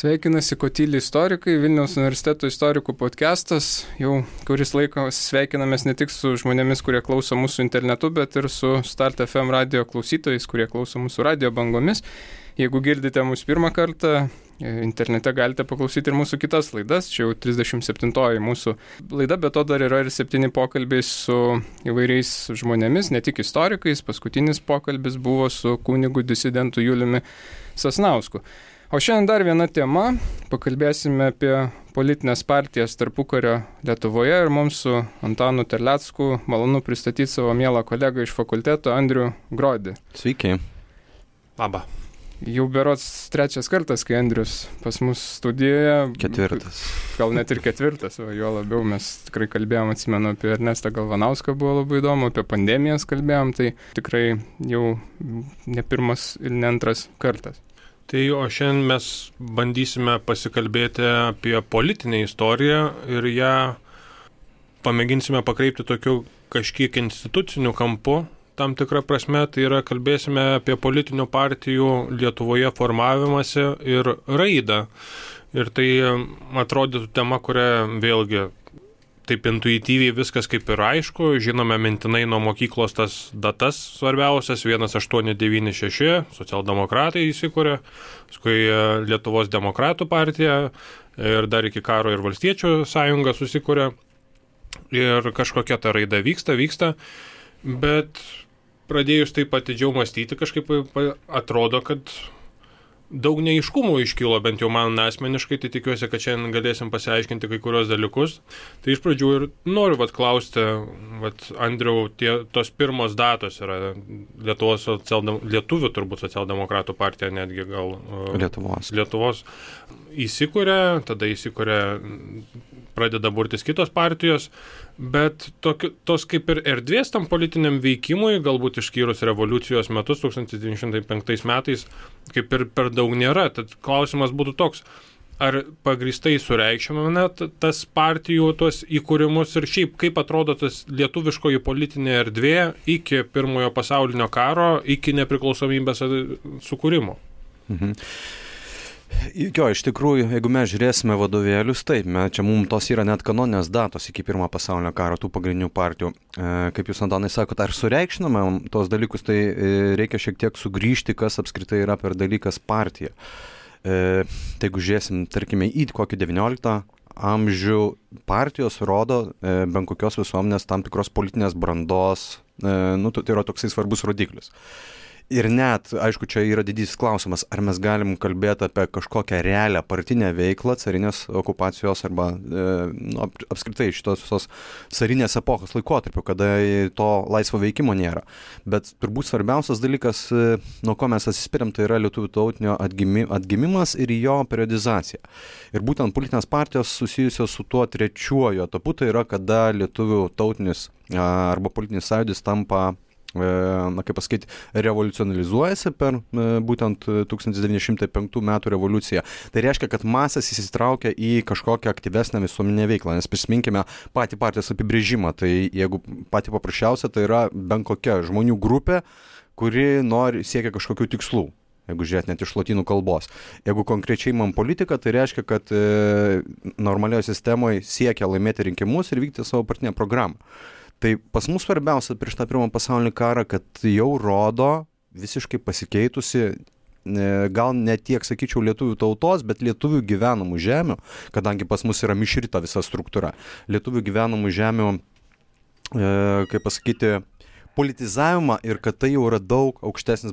Sveikinasi Kotyli istorikai, Vilniaus universiteto istorikų podcastas. Jau kuris laikas sveikinamės ne tik su žmonėmis, kurie klauso mūsų internetu, bet ir su Start FM radio klausytojais, kurie klauso mūsų radio bangomis. Jeigu girdite mūsų pirmą kartą, internete galite paklausyti ir mūsų kitas laidas. Čia jau 37-oji mūsų laida, bet to dar yra ir 7 pokalbiai su įvairiais žmonėmis, ne tik istorikais. Paskutinis pokalbis buvo su kunigu disidentu Juliumi Sasnausku. O šiandien dar viena tema, pakalbėsime apie politinės partijas tarpukario Lietuvoje ir mums su Antanu Terlecku malonu pristatyti savo mielą kolegą iš fakulteto Andrių Grodį. Sveiki. Labą. Jau berods 3 kartas, kai Andrius pas mus studijoje. 4. Gal net ir 4, o jo labiau mes tikrai kalbėjom, atsimenu, apie Ernestą Galvanauską buvo labai įdomu, apie pandemijas kalbėjom, tai tikrai jau ne pirmas ir ne antras kartas. Tai o šiandien mes bandysime pasikalbėti apie politinę istoriją ir ją pamėginsime pakreipti tokiu kažkiek instituciniu kampu. Tam tikrą prasme, tai yra kalbėsime apie politinių partijų Lietuvoje formavimąsi ir raidą. Ir tai atrodytų tema, kurią vėlgi taip intuityviai viskas kaip ir aišku, žinome mintinai nuo mokyklos tas datas svarbiausias, 1896, socialdemokratai įsikūrė, paskui Lietuvos demokratų partija ir dar iki karo ir valstiečių sąjunga susikūrė ir kažkokia ta raida vyksta, bet pradėjus taip atidžiau mąstyti, kažkaip atrodo, kad daug neaiškumų iškilo, bent jau man asmeniškai, tai tikiuosi, kad šiandien galėsim pasiaiškinti kai kurios dalykus. Tai iš pradžių ir noriu klausti, Andriau, tos pirmos datos yra lietuvių turbūt socialdemokratų partija, netgi gal Lietuvos įsikūrė, tada pradeda burtis kitos partijos, bet tos kaip ir erdvės tam politiniam veikimui, galbūt išskyrus revoliucijos metus 1905 metais, kaip ir per daug nėra. Tad klausimas būtų toks, ar pagrįstai sureikšminame tas partijų tuos įkūrimus ir šiaip kaip atrodo tas lietuviškoji politinė erdvė iki Pirmojo pasaulinio karo, iki nepriklausomybės sukūrimo? Mhm. Jo, iš tikrųjų, jeigu mes žiūrėsime vadovėlius, taip, čia mums tos yra net kanoninės datos iki Pirmojo pasaulinio karo, tų pagrindinių partijų. Kaip jūs, Antanai, sakot, ar sureikšminame tos dalykus, tai reikia šiek tiek sugrįžti, kas apskritai yra per dalykas partija. Tai jeigu žiūrėsim, tarkime, į kokį 19 amžių, partijos rodo bent kokios visuomenės tam tikros politinės brandos, tai yra toksai svarbus rodiklis. Ir net, aišku, čia yra didysis klausimas, ar mes galim kalbėti apie kažkokią realią partinę veiklą carinės okupacijos arba apskritai šitos visos carinės epochos laikotarpio, kada to laisvo veikimo nėra. Bet turbūt svarbiausias dalykas, nuo ko mes atsispiriam, tai yra lietuvių tautinio atgimimas ir jo periodizacija. Ir būtent politinės partijos susijusios su tuo trečiuoju etapu, tai yra kada lietuvių tautinis arba politinis sąjūdis tampa revoliucionalizuojasi per būtent 1905 metų revoliuciją. Tai reiškia, kad masės įsitraukia į kažkokią aktyvesnę visuomeninę veiklą, nes prisiminkime patį partijos apibrėžimą. Tai jeigu patį paprasčiausia, tai yra bent kokia žmonių grupė, kuri siekia kažkokių tikslų. Jeigu žiūrėt net iš lotynų kalbos. Jeigu konkrečiai man politika, tai reiškia, kad normalioje sistemoje siekia laimėti rinkimus ir vykti savo partinę programą. Tai pas mus svarbiausia prieš tą Pirmą pasaulinį karą, kad jau rodo visiškai pasikeitusi, gal ne tiek, sakyčiau, lietuvių tautos, bet lietuvių gyvenamų žemių, kadangi pas mus yra mišrita visa struktūra. Lietuvių gyvenamų žemių, kaip pasakyti, politizavimą ir kad tai jau yra daug aukštesnis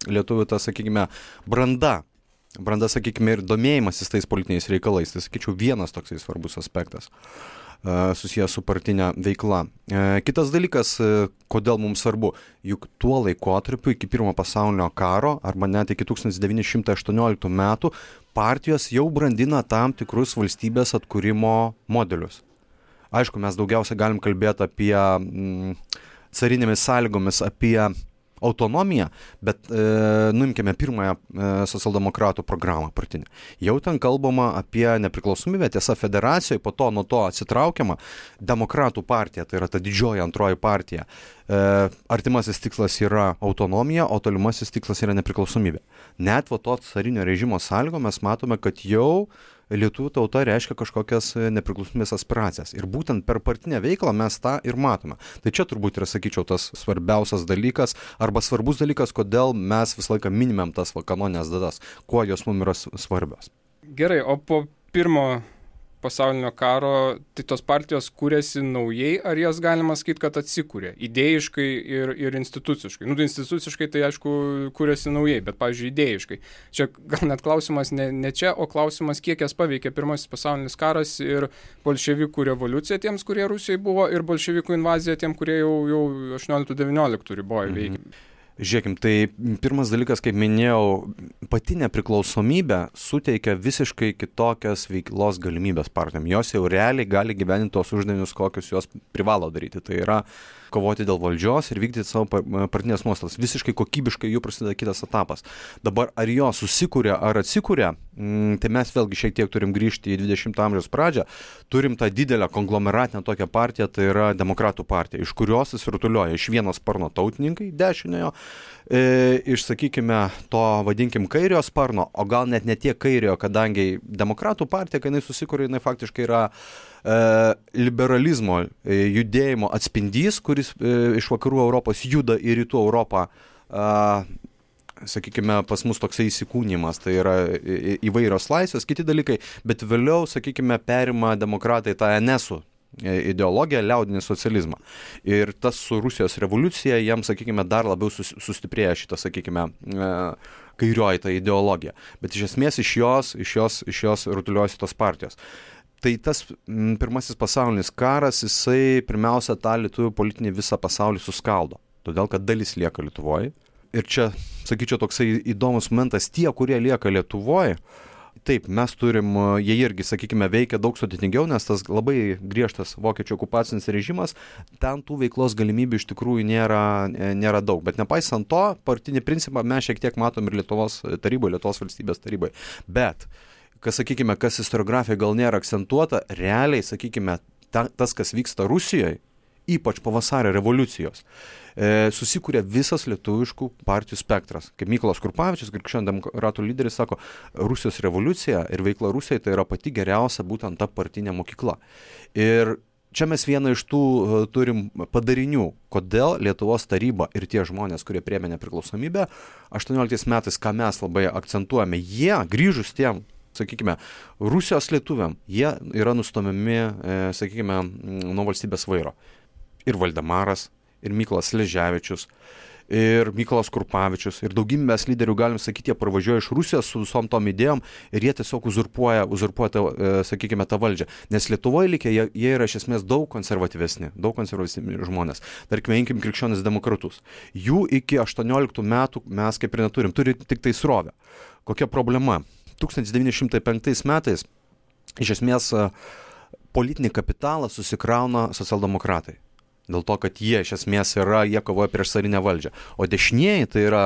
lietuvių, sakykime, branda, sakykime, ir domėjimasis tais politiniais reikalais. Tai, sakyčiau, vienas toksai svarbus aspektas susijęs su partinė veikla. Kitas dalykas, kodėl mums svarbu, juk tuo laikotarpiu iki Pirmo pasaulinio karo arba net iki 1918 metų partijos jau brandina tam tikrus valstybės atkūrimo modelius. Aišku, mes daugiausia galim kalbėti apie carinėmis sąlygomis, apie autonomiją, bet nuimkime pirmąją socialdemokratų programą partinę. Jau ten kalbama apie nepriklausomybę, tiesa federacijoje, po to nuo to atsitraukiama demokratų partija, tai yra ta didžioji antroji partija. Artimasis tikslas yra autonomija, o tolimasis tikslas yra nepriklausomybė. Net to carinio režimo sąlygo mes matome, kad jau lietuvių tauta reiškia kažkokias nepriklausomybės aspiracijas. Ir būtent per partinę veiklą mes tą ir matome. Tai čia turbūt yra, sakyčiau, tas svarbiausias dalykas arba svarbus dalykas, kodėl mes visą laiką minimėm tas kanoninės datas, kuo jos mums yra svarbios. Gerai, o po pirmo pasaulinio karo, tai tos partijos kūrėsi naujai, ar jas galima sakyti, kad atsikūrė idėjiškai ir instituciškai? Tai instituciškai tai aišku kūrėsi naujai, bet, pavyzdžiui, idėjiškai. Čia gal net klausimas ne čia, o klausimas, kiek jas paveikė pirmasis pasaulinis karas ir bolševikų revoliucija tiems, kurie Rusijoje buvo, ir bolševikų invazija tiem, kurie jau 18-19 riboje veikė. Žiūrėkim, tai pirmas dalykas, kaip minėjau, pati nepriklausomybė suteikia visiškai kitokias veiklos galimybės partijom. Jos jau realiai gali gyveninti tos uždavinius, kokius jos privalo daryti. Tai yra kovoti dėl valdžios ir vykdyti savo partinės nuostatas. Visiškai kokybiškai jų prasideda kitas etapas. Dabar ar jos susikūrė ar atsikūrė, tai mes vėlgi šiek tiek turim grįžti į 20 amžiaus pradžią. Turim tą didelę konglomeratinę tokią partiją, tai yra demokratų partija, iš kurios susirutulioja iš vieno sparno tautininkai, dešiniojo, iš, sakykime, to vadinkim kairiojo sparno, o gal net ne tiek kairiojo, kadangi demokratų partija, kai jinai susikūrė, jinai faktiškai yra liberalizmo judėjimo atspindys, kuris iš vakarų Europos juda į rytų Europą, sakykime, pas mus toksai įsikūnimas, tai yra įvairios laisvės, kiti dalykai, bet vėliau, sakykime, perima demokratai tą NS-ų ideologiją, liaudinį socializmą. Ir tas su Rusijos revoliucija, jiems, sakykime, dar labiau sustiprėja šitą, sakykime, kairioji ta ideologija. Bet iš esmės iš jos rutuliuojasi tos partijos. Tai tas pirmasis pasaulinis karas, jisai pirmiausia tą lietuvių politinį visą pasaulį suskaldo. Todėl, kad dalis lieka Lietuvoje. Ir čia, sakyčiau, toksai įdomus momentas, tie, kurie lieka Lietuvoje, taip, mes turim, jie irgi, sakykime, veikia daug sudėtingiau, nes tas labai griežtas vokiečių okupacinis režimas, ten tų veiklos galimybių iš tikrųjų nėra daug. Bet nepaisant to, partinį principą mes šiek tiek matom ir Lietuvos taryboje, Lietuvos valstybės taryboje. Bet kas istoriografija gal nėra akcentuota, realiai, sakykime, tas, kas vyksta Rusijoje, ypač po vasario revoliucijos, susikūrė visas lietuviškų partijų spektras. Kaip Mykolas Krupavičius, krikščionių demokratų lyderis, sako, Rusijos revoliucija ir veikla Rusijoje tai yra pati geriausia būtent ta partinė mokykla. Ir čia mes vieną iš tų turim padarinių, kodėl Lietuvos taryba ir tie žmonės, kurie priėmė nepriklausomybę, 18 metais, ką mes labai akcentuojame, jie grįžus tiem, sakykime, Rusijos lietuviam, jie yra nustumiami, sakykime, nuo valstybės vairo. Ir Valdemaras, ir Mykolas Sleževičius, ir Mykolas Krupavičius, ir daugybės lyderių, galim sakyti, jie pravažiuoja iš Rusijos su visom tom idėjom ir jie tiesiog uzurpuoja sakykime, tą valdžią. Nes Lietuvoje likę, jie yra iš esmės daug konservatyvesni žmonės. Tarkime, imkim krikščionis demokratus. Jų iki 18 metų mes kaip ir neturim, turi tik tai srovę. Kokia problema? 1905 metais iš esmės politinį kapitalą susikrauna socialdemokratai. Dėl to, kad jie iš esmės jie kovoja prieš carinę valdžią. O dešinieji, tai yra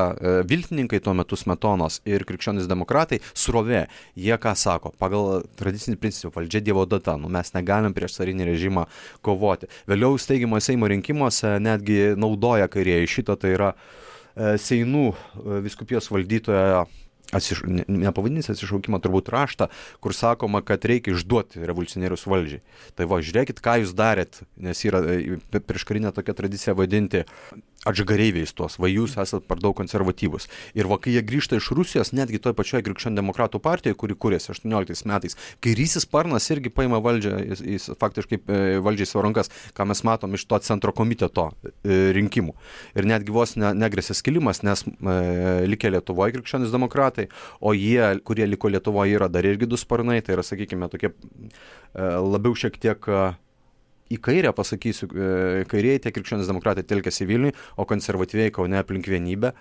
viltininkai tuo metu Smetonos ir krikščionys demokratai, srovė. Jie ką sako? Pagal tradicinį principą valdžia Dievo data. Mes negalim prieš carinį režimą kovoti. Vėliau steigiamo Seimo rinkimuose netgi naudoja kairieji šitą, tai yra Seinų vyskupijos valdytoja, nepavadinys atsišaukimo turbūt raštą, kur sakoma, kad reikia išduoti revoliucionierius valdžiai. Tai va, žiūrėkit, ką jūs darėt, nes yra prieškarinė tokia tradicija vadinti atžagareiviais tuos, va jūs esat per daug konservatyvus. Ir va, kai jie grįžta iš Rusijos, netgi toj pačioje krikščionių demokratų partijoje, kuri kūrėsi 18 metais, kairysis sparnas irgi paima valdžią, jis faktiškai valdžiai savo rankas, ką mes matom iš to centro komiteto rinkimų. Ir netgi vos negresė skilimas, nes likę Lietuvoje krikščionys demokratai, o jie, kurie liko Lietuvoje, yra dar irgi du sparnai, tai yra, sakykime, tokie labiau šiek tiek į kairę, pasakysiu, kairieji tie krikščionys demokratai telkėsi Vilniui, o konservatyviai Kaune aplink Vienybę.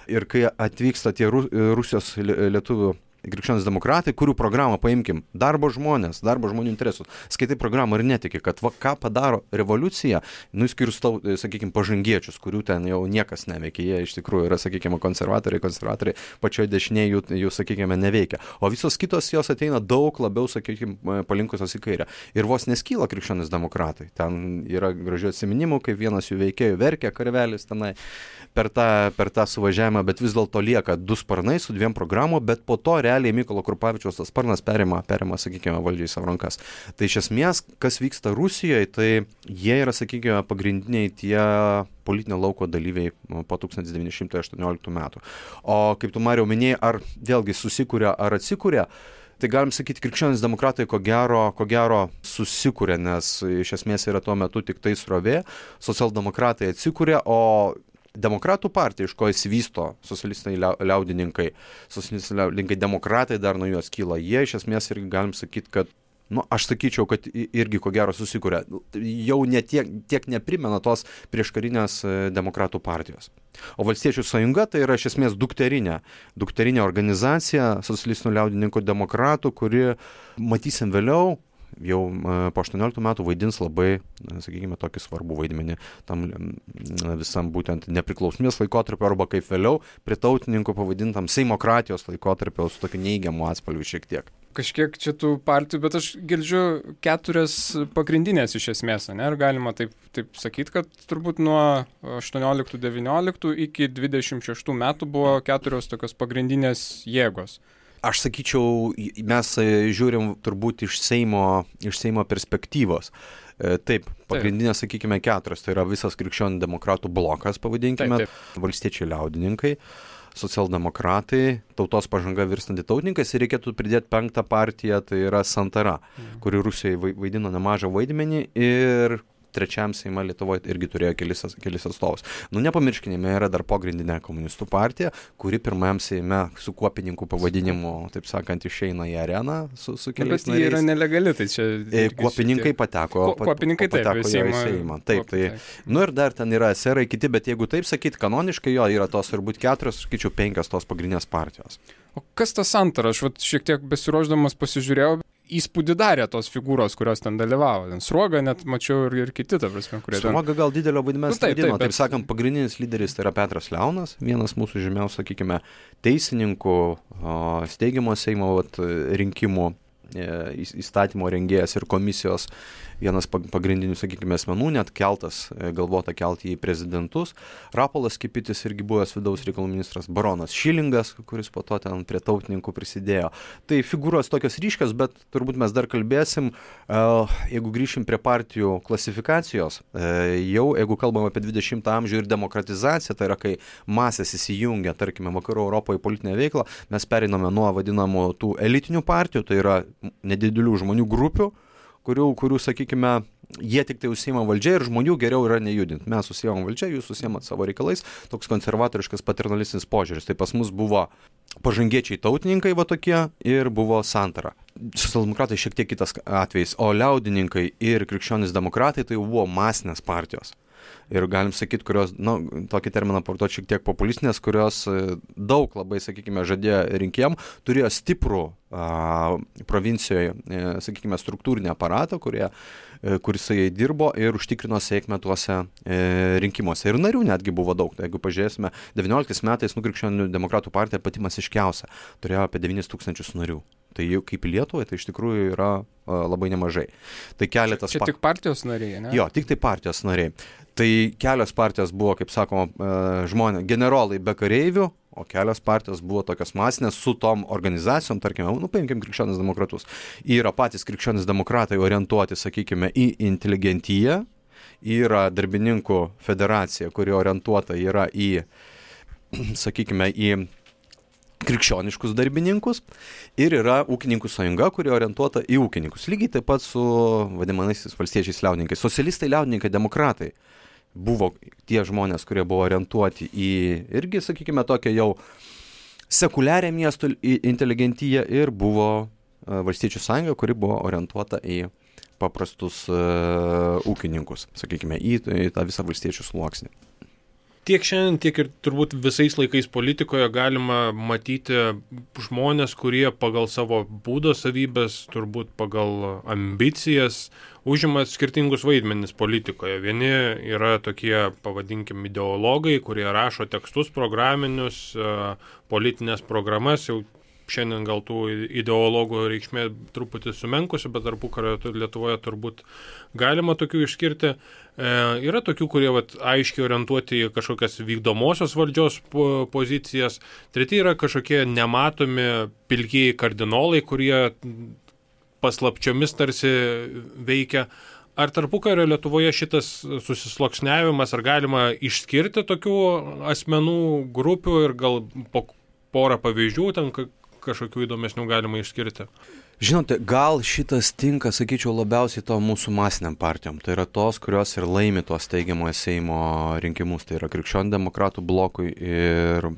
Ir kai atvyksta tie Rusijos lietuvių krikščionys demokratai, kurių programą paimkim, darbo žmonių interesus. Skaitai programą ir netiki, kad ką padaro revoliucija, išskyrus, sakykime, pažangiečius, kurių ten jau niekas neveikia. Jie iš tikrųjų yra, sakykime, konservatoriai pačioje dešinėje jų, sakykime, neveikia. O visos kitos jos ateina daug labiau, sakykime, palinkusios į kairę. Ir vos neskyla krikščionys demokratai. Ten yra gražių atsiminimų, kaip vienas jų veikėjų verkia karvelis tenai per tą suvažiavimą, bet vis dėlto lieka 2 sparnai su 2 programų, bet po to realiai Mykolo Krupavičiaus tas sparnas perima, sakykime, valdžiai savo rankas. Tai iš esmės, kas vyksta Rusijoje, tai jie yra, sakykime, pagrindiniai tie politinio lauko dalyviai po 1918 metų. O kaip tu, Mariau, minėjai, ar vėlgi susikūrė, ar atsikūrė, tai galim sakyti, krikščionys demokratai ko gero susikūrė, nes iš esmės yra tuo metu tik tai srovė, socialdemokratai atsikūrė, o Demokratų partija, iš ko įsivysto socialistiniai liaudininkai, demokratai dar nuo juos kyla, jie iš esmės irgi galim sakyti, kad, aš sakyčiau, kad irgi ko gero susikūrė, jau tiek neprimena tos prieškarinės demokratų partijos. O Valstiečių sąjunga tai yra iš esmės dukterinė organizacija socialistinių liaudininkų demokratų, kuri, matysim vėliau, jau po 18 metų vaidins labai, sakykime, tokį svarbų vaidmenį tam visam būtent nepriklausomybės laikotarpio arba kaip vėliau prie tautininkų pavadintam seimokratijos laikotarpio su tokiu neigiamu atspalviu šiek tiek. Kažkiek čia tų partijų, bet aš girdžiu 4 pagrindinės iš esmės, ne? Ar galima taip sakyti, kad turbūt nuo 18-19 iki 26 metų buvo 4 tokios pagrindinės jėgos. Aš sakyčiau, mes žiūrim turbūt iš Seimo perspektyvos. Taip, pagrindinės, sakykime, 4. Tai yra visas krikščionių demokratų blokas, pavadinkime, taip. Valstiečiai liaudininkai, socialdemokratai, tautos pažanga virstanti tautininkais ir reikėtų pridėti 5. partiją, tai yra Santara, kuri Rusijoje vaidino nemažą vaidmenį ir 3 Seime Lietuvoje irgi turėjo kelis atstovus. Nepamirškime, yra dar pogrindinė komunistų partija, kuri 1 Seime su kuopininkų pavadinimu, taip sakant, išeina į areną su keliais nariais. Bet jie yra nelegali, tai čia... Kuopininkai pateko į Seimą. Taip. Ir dar ten yra SR kiti, bet jeigu taip sakyti, kanoniškai jo yra tos turbūt 4, sakyčiau, 5 tos pagrindinės partijos. O kas tas Santara? Aš šiek tiek besiruošdamas pasižiūrėjau, įspūdį darė tos figūros, kurios ten dalyvavo. Sruoga net mačiau ir kiti, ta prasme, kurie ten... Sruoga gal didelio vaidmens vaidino. Taip sakant, pagrindinis lyderis tai yra Petras Leonas, vienas mūsų žymiausių, sakykime, teisininkų, steigiamo Seimo rinkimų įstatymo rengėjas ir komisijos vienas pagrindinių, sakykime, asmenų, net galvota kelti į prezidentus. Rapolas Kipitis irgi buvęs vidaus reikalų ministras, baronas Šilingas, kuris po to ten prie tautininkų prisidėjo. Tai figūros tokios ryškios, bet turbūt mes dar kalbėsim, jeigu grįšim prie partijų klasifikacijos, jau jeigu kalbam apie 20 amžių ir demokratizaciją, tai yra kai masės įsijungia, tarkime, vakarų Europoje politinę veiklą, mes pereiname nuo vadinamų tų elitinių partijų, tai yra nedidelių žmonių grupių, kurių, sakykime, jie tik tai užsiima valdžia ir žmonių geriau yra nejudinti. Mes užsiimam valdžia, jūs užsiimat savo reikalais, toks konservatoriškas paternalistinis požiūris. Tai pas mus buvo pažangiečiai tautininkai va tokie ir buvo Santara. Socialdemokratai šiek tiek kitas atvejis, o liaudininkai ir krikščionys demokratai tai buvo masinės partijos. Ir galim sakyti, kurios, tokį terminą portuoti šiek tiek populistinės, kurios daug labai, sakykime, žadėjo rinkėjam, turėjo stiprų provincijoje, sakykime, struktūrinį aparatą, kuris jai dirbo ir užtikrino sėkmę tuose rinkimuose. Ir narių netgi buvo daug. Tai jeigu pažiūrėsime, 19 metais krikščionių demokratų partija pati masiškiausia, turėjo apie 9 000 narių. Tai jau kaip Lietuvoje, tai iš tikrųjų yra labai nemažai. Tai keletas... Čia tik partijos nariai, ne? Jo, tik tai partijos nariai. Tai kelios partijos buvo, kaip sakoma, generolai be kareivių, o kelios partijos buvo tokios masinės su tom organizacijom, tarkime, paimkim krikščionis demokratus. Yra patys krikščionis demokratai orientuoti, sakykime, į inteligentiją, yra darbininkų federacija, kuri orientuota yra į, sakykime, į krikščioniškus darbininkus ir yra ūkininkų sąjunga, kuri orientuota į ūkininkus. Lygiai taip pat su vadinamaisiais valstiečiais liaudininkais. Socialistai, liaudininkai, demokratai buvo tie žmonės, kurie buvo orientuoti į irgi, sakykime, tokią jau sekuliarią miestų inteligentiją ir buvo valstiečių sąjunga, kuri buvo orientuota į paprastus ūkininkus, sakykime, į tą visą valstiečių sluoksnį. Tiek šiandien, tiek ir turbūt visais laikais politikoje galima matyti žmonės, kurie pagal savo būdo savybės, turbūt pagal ambicijas, užima skirtingus vaidmenis politikoje. Vieni yra tokie, pavadinkim, ideologai, kurie rašo tekstus programinius, politinės programas, jau šiandien gal tų ideologų reikšmė truputį sumenkusi, bet tarpukario Lietuvoje turbūt galima tokių išskirti. Yra tokių, kurie aiškiai orientuoti į kažkokias vykdomosios valdžios pozicijas. Treti yra kažkokie nematomi pilkieji kardinolai, kurie paslapčiomis tarsi veikia. Ar tarpukario Lietuvoje šitas susisluoksniavimas, ar galima išskirti tokių asmenų grupių ir gal po porą pavyzdžių ten kažkokių įdomesnių galima išskirti? Žinote, gal šitas tinka, sakyčiau, labiausiai to mūsų masiniam partijom. Tai yra tos, kurios ir laimi tos teigiamojo Seimo rinkimus. Tai yra Krikščionių demokratų blokui ir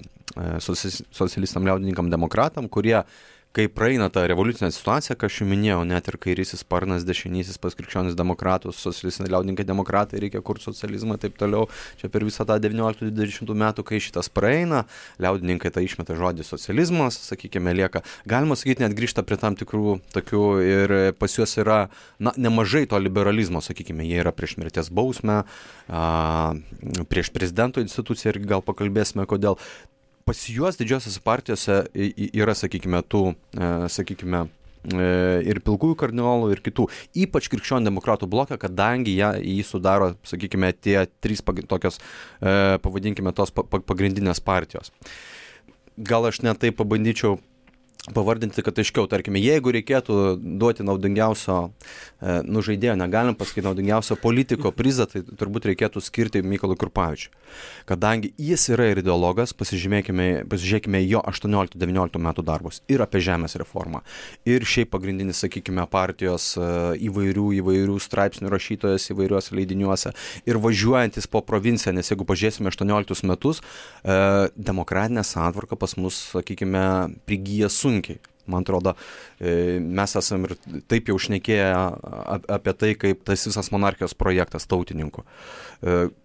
socialistam liaudininkam demokratam, kurie, kai praeina tą revoliucinę situaciją, ką aš jau minėjau, net ir kairysis sparnas, dešinysis pas krikščionis demokratus, socialistiniai liaudininkai demokratai, reikia kurti socializmą ir taip toliau. Čia per visą tą 19-20 metų, kai šitas praeina, liaudininkai tą išmeta žodį socializmas, sakykime, lieka. Galima sakyti, net grįžta prie tam tikrų tokių ir pas juos yra nemažai to liberalizmo, sakykime, jie yra prieš mirties bausmę, prieš prezidento instituciją ir gal pakalbėsime, kodėl. Pas juos didžiosiose partijose yra, sakykime, ir pilkųjų kardinolų, ir kitų, ypač krikščionių demokratų bloką, kadangi jį sudaro, sakykime, tie trys tokios, pavadinkime, tos pagrindinės partijos. Gal aš net tai pabandyčiau pavardinti, kad aiškiau, tarkime, jeigu reikėtų duoti naudingiausio žaidėjo, negalim pasakyti naudingiausio politiko prizą, tai turbūt reikėtų skirti Mykolui Krupavičiui. Kadangi jis yra ir ideologas, pasižiūrėkime jo 18-19 metų darbus ir apie žemės reformą. Ir šiaip pagrindinis, sakykime, partijos įvairių straipsnių rašytojas įvairiuose leidiniuose ir važiuojantis po provinciją, nes jeigu pažiūrėsime 18 metus, demokratinė santvarka pas mus, sakykime, prigyja sunkiai. Man atrodo, mes esam ir taip jau šnekėję apie tai, kaip tas visas monarchijos projektas tautininkų.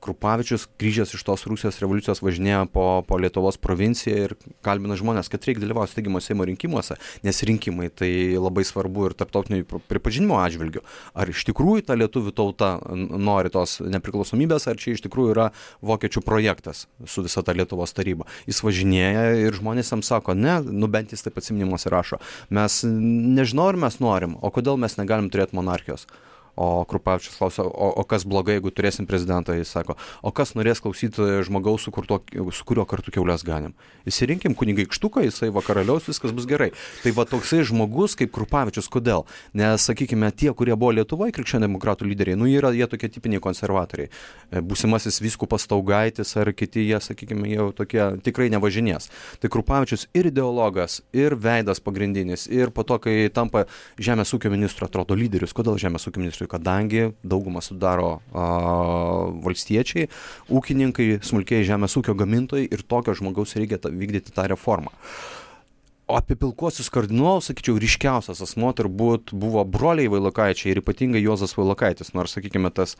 Krupavičius, grįžęs iš tos Rusijos revoliucijos, važinėjo po Lietuvos provinciją ir kalbina žmonės, kad reikia dalyvauti steigiamo Seimo rinkimuose, nes rinkimai tai labai svarbu ir tarptautinio pripažinimo atžvilgiu. Ar iš tikrųjų ta lietuvių tauta nori tos nepriklausomybės, ar čia iš tikrųjų yra vokiečių projektas su visa ta Lietuvos taryba. Jis važinėja ir žmonės jam sako, ne, bent jis taip atsiminimuose rašo. Mes nežinau, ar mes norim, o kodėl mes negalim turėti monarchijos. O Krupavičius klausia, o kas blogai, jeigu turėsim prezidentą, jis sako, o kas norės klausyti žmogaus, su kuriuo kartu kiaulės ganim. Įsirinkim kunigaikštuką, jisai vakaraliaus, viskas bus gerai. Tai va toksai žmogus kaip Krupavičius, kodėl? Nes, sakykime, tie, kurie buvo Lietuvoje krikščionių demokratų lyderiai, jie tokie tipiniai konservatoriai. Būsimasis vyskupas Staugaitis ar kiti, jie, sakykime, jau tokie tikrai nevažinės. Tai Krupavičius ir ideologas, ir veidas pagrindinis, ir po to, kai tampa žemės ūkio ministru, atrodo lyderius. Kodėl žemės ūkio ministru? Kadangi daugumą sudaro valstiečiai, ūkininkai, smulkiai žemės ūkio gamintojai ir tokio žmogaus reikia vykdyti tą reformą. O apie pilkuosius kardinolus, sakyčiau, ryškiausias asmuo turbūt buvo broliai Vailokaičiai ir ypatingai Juozas Vailokaitis, nors, sakykime, tas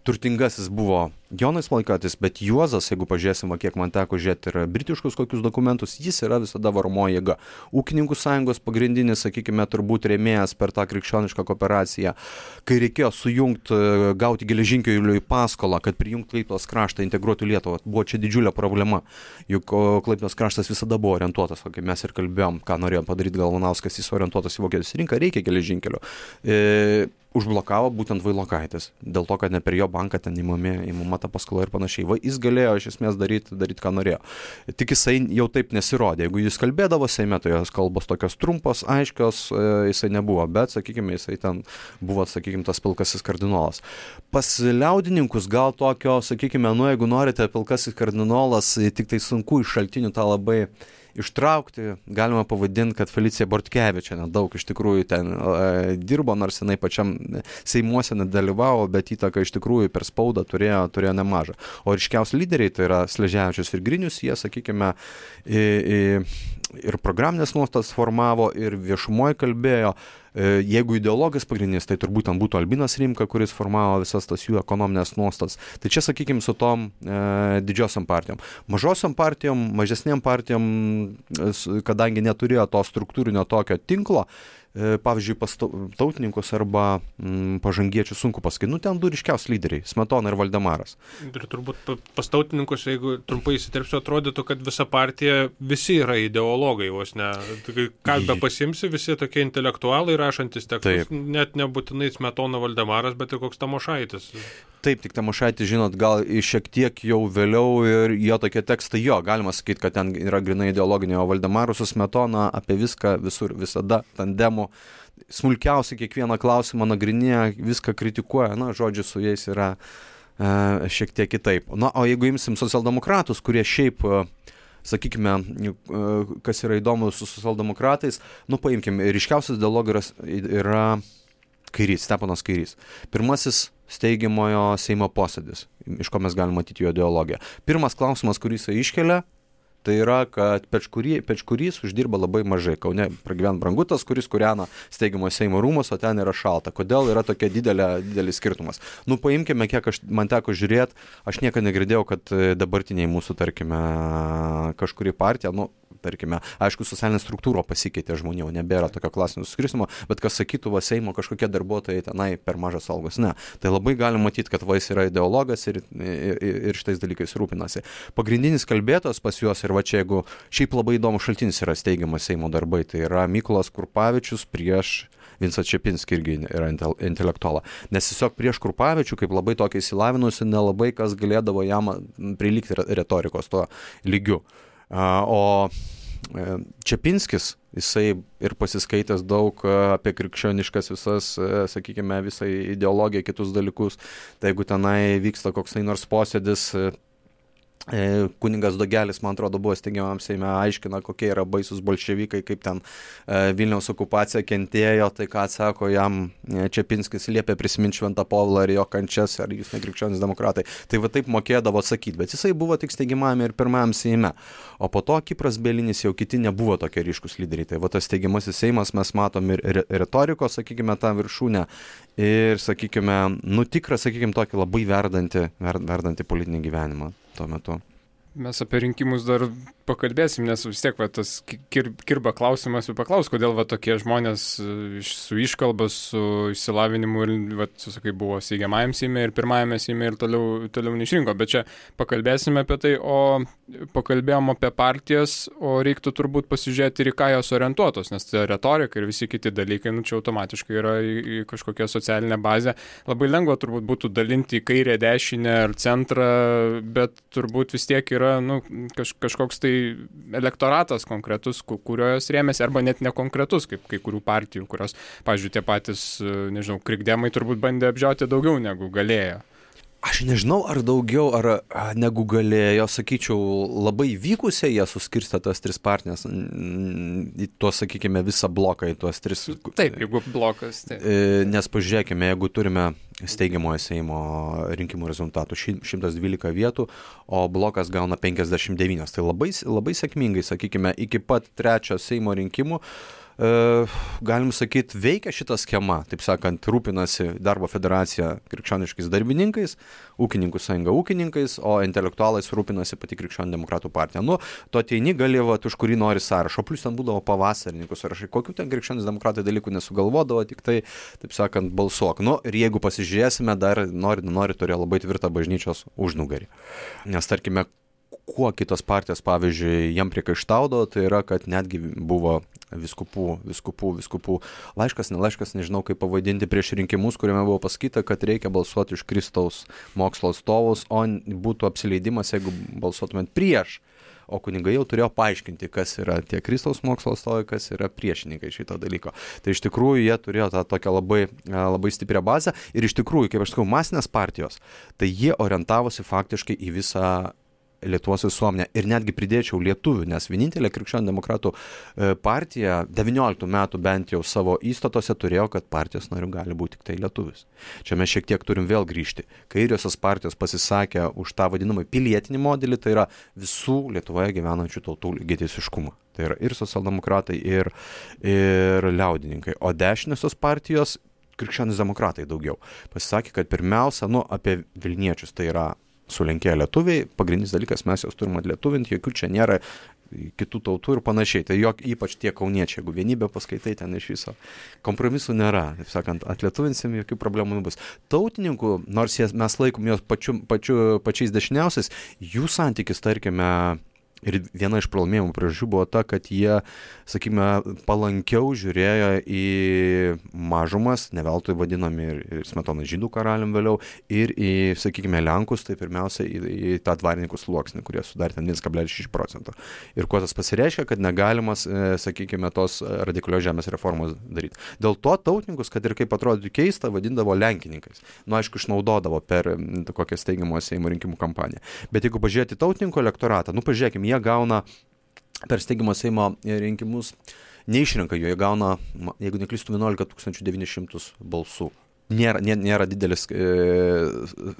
turtingasis buvo Jonas Vailokaitis, bet Juozas, jeigu pažiūrėsim, kiek man teko žiūrėti ir britiškus kokius dokumentus, jis yra visada varomoji jėga. Ūkininkų sąjungos pagrindinis, sakykime, turbūt rėmėjas per tą krikščionišką kooperaciją, kai reikėjo sujungti, gauti geležinkeliui paskolą, kad prijungti Klaipėdos kraštą, integruoti Lietuvą, buvo čia didžiulė problema, juk Klaipėdos kraštas visada buvo orientuotas, kaip mes ir kalbėjom, ką norėjo padaryti Galvanauskas, jis orientuotas į Vokietijos rinką, reikia geležinkelio. Užblokavo būtent Vailokaitis, dėl to, kad ne per jo banką ten įmama ta paskola ir panašiai. Jis galėjo iš esmės daryti, ką norėjo. Tik jisai jau taip nesirodė. Jeigu jis kalbėdavo Seime, tai jos kalbos tokios trumpos, aiškios, jisai nebuvo, bet, sakykime, jisai ten buvo, sakykime, tas pilkasis kardinolas. Pas liaudininkus gal tokio, sakykime, jeigu norite pilkasis kardinolas, tik tai sunku iš šaltinių tą labai ištraukti, galima pavadinti, kad Felicija Bortkevičienė daug iš tikrųjų ten dirbo, nors jinai pačiam Seimuose nedalyvavo, bet įtaką iš tikrųjų per spaudą turėjo nemažą. O ryškiausi lyderiai, tai yra Sleževičius ir Grinius, jie, sakykime, ir programinės nuostatas formavo, ir viešumoje kalbėjo. Jeigu ideologas pagrindinis, tai turbūt ten būtų Albinas Rimka, kuris formavo visas tas jų ekonominės nuostatas. Tai čia, sakykime, su tom didžiosiam partijom. Mažosiam partijom, mažesnėm partijom, kadangi neturėjo to struktūrinio tokio tinklo, pavyzdžiui, pas tautininkus arba pažangiečių sunku pasakyti. Ten du ryškiausi lyderiai - Smetona ir Valdemaras. Ir turbūt pas tautininkus, jeigu trumpai įsiterpsiu, atrodytų, kad visa partija, visi yra ideologai, vos ne. Ką be pasimsi, visi tokie intelektualai rašantis tekstus, net nebūtinai Smetona Valdemaras, bet ir koks Tamošaitis. Taip, tik Tamošaitis, žinot, gal šiek tiek jau vėliau ir jo tokie tekstai, galima sakyti, kad ten yra grinai ideologinė, o Valdemaras su Smetona apie viską, visur, visada, tandemu, smulkiausiai kiekvieną klausimą nagrinėja, viską kritikuoja, žodžiu, su jais yra šiek tiek kitaip. O jeigu imsim socialdemokratus, kurie šiaip, sakykime, kas yra įdomu su socialdemokratais, paimkim, ryškiausias ideologas yra Kairys, Steponas Kairys. Pirmasis steigiamojo Seimo posėdis, iš ko mes galime matyti jo ideologiją. Pirmas klausimas, kurį jis iškelia, tai yra, kad Pečkurys uždirba labai mažai. Kaune pragyvena Brangutas, kuris kūrena steigiamojo Seimo rūmus, o ten yra šalta. Kodėl yra tokia didelis skirtumas? Paimkime, kiek man teko žiūrėti, aš niekada negirdėjau, kad dabartiniai mūsų, tarkime, kažkuri partija, tarkime, aišku, socialinė struktūra pasikeitė žmonių, nebėra tokio klasinio suskirstimo, bet kas sakytų, Seimo kažkokie darbuotojai tenai per mažas algos. Ne. Tai labai galim matyti, kad jis yra ideologas ir šitais dalykais rūpinasi. Pagrindinis kalbėtojas pas juos, ir va čia, jeigu šiaip labai įdomus šaltinis yra steigiamas Seimo darbai, tai yra Mykolas Krupavičius prieš Vincą Čepinskį, irgi yra intelektualą. Nes tiesiog prieš Krupavičių, kaip labai tokia įsilavinusi, nelabai kas galėdavo jam prilygti retorikos tuo lygiu. O Čepinskis, jisai ir pasiskaitęs daug apie krikščioniškas visas, sakykime, visą ideologiją, kitus dalykus, tai jeigu tenai vyksta koks nors posėdis, Kunigas Dogelis, man atrodo, buvo steigiamam Seime, aiškina, kokie yra baisus bolševikai, kaip ten Vilniaus okupacija kentėjo, tai ką atsako jam Čepinskis, liepė prisiminti Šventą Povilą ir jo kančias, ar jūs nekrikščionys demokratai. Tai va taip mokėdavo atsakyti, bet jisai buvo tik steigiamame ir pirmajam Seime. O po to Kipras Bielinis, jau kiti nebuvo tokie ryškus lyderiai. Tai va tas steigiamasis Seimas, mes matom ir retorikos, sakykime, tą viršūnę ir, sakykime, tikrą, sakykime, tokį labai verdantį politinį gyvenimą tuo metu. Mes apie rinkimus dar pakalbėsim, nes vis tiek tas kirba klausimas ir paklaus, kodėl tokie žmonės su iškalba, su išsilavinimu ir, sakai, buvo steigiamajam Seime ir pirmajame Seime ir toliau neišrinko. Bet čia pakalbėsime apie tai, o pakalbėjom apie partijas, o reiktų turbūt pasižiūrėti ir į ką jos orientuotos, nes tai retorika ir visi kiti dalykai, čia automatiškai yra į kažkokią socialinę bazę. Labai lengva turbūt būtų dalinti į kairę, dešinę ar centrą, bet turbūt vis tiek yra kažkoks tai elektoratas konkretus, kurio jos rėmėsi, arba net nekonkretus, kaip kai kurių partijų, kurios, pavyzdžiui, tie patys, krikdemai turbūt bandė apžiauti daugiau negu galėjo. Aš nežinau, ar daugiau, ar negu galėjo, sakyčiau, labai vykusiai jie suskirstė tas tris partijas, į tuos, sakykime, visą bloką, į tuos tris. Taip, jeigu blokas. Taip. Nes pažiūrėkime, jeigu turime steigiamojo Seimo rinkimų rezultatų 112 vietų, o blokas gauna 59, tai labai sėkmingai, sakykime, iki pat trečio Seimo rinkimų, galim sakyti, veikia šita schema, taip sakant, rūpinasi Darbo federacija krikščioniškais darbininkais, ūkininkų sąjunga ūkininkais, o intelektualais rūpinasi pati krikščionių demokratų partija. Tu ateini gali, už kurį nori sąrašo, plus ten būdavo pavasarininkų sąrašai, kokių ten krikščionys demokratai dalykų nesugalvodavo, tik tai, taip sakant, balsuok. Ir jeigu pasižiūrėsime, dar nori turėjo labai tvirtą bažnyčios užnugarį. Nes, tarkime, kuo kitos partijos, pavyzdžiui, jam priekaištaudavo, tai yra, kad netgi buvo viskupų laiškas, nežinau kaip pavadinti, prieš rinkimus, kuriame buvo pasakyta, kad reikia balsuoti už Kristaus mokslo atstovus, o būtų apsileidimas, jeigu balsuotumėt prieš. O kunigai jau turėjo paaiškinti, kas yra tie Kristaus mokslo atstovai, kas yra priešininkai šito dalyko. Tai iš tikrųjų jie turėjo tą tokią labai stiprią bazę ir iš tikrųjų, kaip aš sakau, masinės partijos, tai jie orientavosi faktiškai į visą Lietuvos visuomenę ir netgi pridėčiau lietuvių, nes vienintelė krikščionių demokratų partija 19 metų bent jau savo įstatose turėjo, kad partijos nariu gali būti tik tai lietuvis. Čia mes šiek tiek turim vėl grįžti. Kairiosios partijos pasisakė už tą vadinamą pilietinį modelį, tai yra visų Lietuvoje gyvenančių tautų lygiateisiškumą. Tai yra ir socialdemokratai, ir liaudininkai. O dešiniosios partijos, krikščionys demokratai daugiau, pasisakė, kad pirmiausia, apie Vilniečius, tai yra sulenkėję lietuviai, pagrindinis dalykas, mes juos turime atlietuvinti, jokių čia nėra kitų tautų ir panašiai. Tai ypač tie kauniečiai, jeigu vienybę paskaitai, ten iš viso kompromisų nėra. Taip sakant, atlietuvinsim, jokių problemų nebus. Tautininkų, nors mes laikom juos pačiais dešiniausiais, jų santykis, tarkime, ir viena iš pralaimėjimų priežasčių buvo ta, kad jie, sakykime, palankiau žiūrėjo į mažumas, ne veltui vadinami ir Smetona žydų karalium vėliau, ir į, sakykime, Lenkus, tai pirmiausia į tą dvarininkų sluoksnį, kurie sudarė ten 1,6%. Ir kuo tas pasireiškia, kad negalimas, sakykime, tos radikalios žemės reformos daryti. Dėl to tautininkus, kad ir kaip atrodytų keista, vadindavo lenkininkais. Aišku, išnaudodavo per kokią steigiamo Seimo rinkimų kampaniją. Bet jeigu pažiūrėti tautininkų elektoratą, pažiūrėkime, jie gauna per steigimo Seimo rinkimus, neišrenka jų, jie gauna, jeigu neklystu, 11 900 balsų. Nėra didelis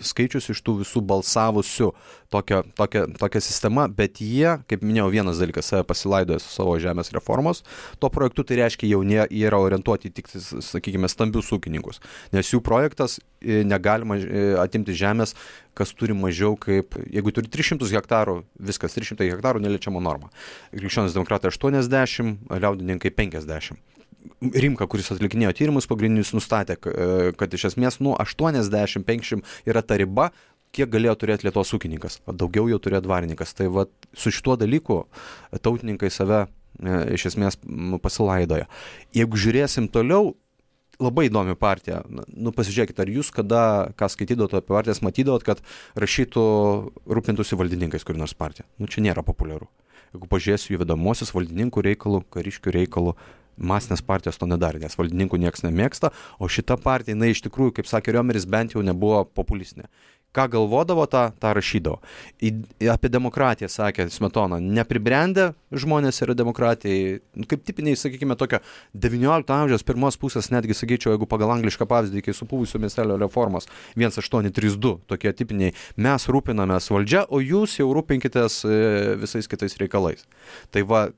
skaičius iš tų visų balsavusių tokia sistema, bet jie, kaip minėjau, vienas dalykas, save pasilaidoja su savo žemės reformos, tuo projektu tai reiškia jau jie yra orientuoti tik, sakykime, stambius ūkininkus, nes jų projektas negalima atimti žemės, kas turi mažiau kaip, jeigu turi 300 hektarų, viskas, 300 hektarų neliečiama norma. Krikščionys demokratai 80, liaudininkai 50. Rimka, kuris atlikinėjo tyrimus pagrindinius, nustatė, kad iš esmės 80-50 yra ta riba, kiek galėjo turėti Lietuvos ūkininkas, o daugiau jau turėjo dvarininkas. Tai va, su šituo dalyku tautininkai save iš esmės pasilaidoja. Jeigu žiūrėsim toliau, labai įdomi partija. Pasižiūrėkit, ar jūs ką skaitydavot apie partijas, matydavot, kad rašytų rūpintųsi valdininkais kur nors partija. Čia nėra populiaru. Jeigu pažiūrėsiu jų vedamosius valdininkų reikalų, kariškių reikalų, masinės partijos to nedarė, nes valdininkų nieks nemėgsta, o šita partija, jinai iš tikrųjų, kaip sakė Riomeris, bent jau nebuvo populistinė. Ką galvodavo, tą rašydavo. Apie demokratiją sakė Smetona, nepribrendę žmonės yra demokratijai, kaip tipiniai, sakykime, tokio 19 amžiaus pirmos pusės, netgi sakyčiau, jeigu pagal anglišką pavyzdį, kai supuvusio miestelio reformos 1832, tokie tipiniai, mes rūpinamės valdžia, o jūs jau rūpinkitės visais kitais reikalais. Tai va,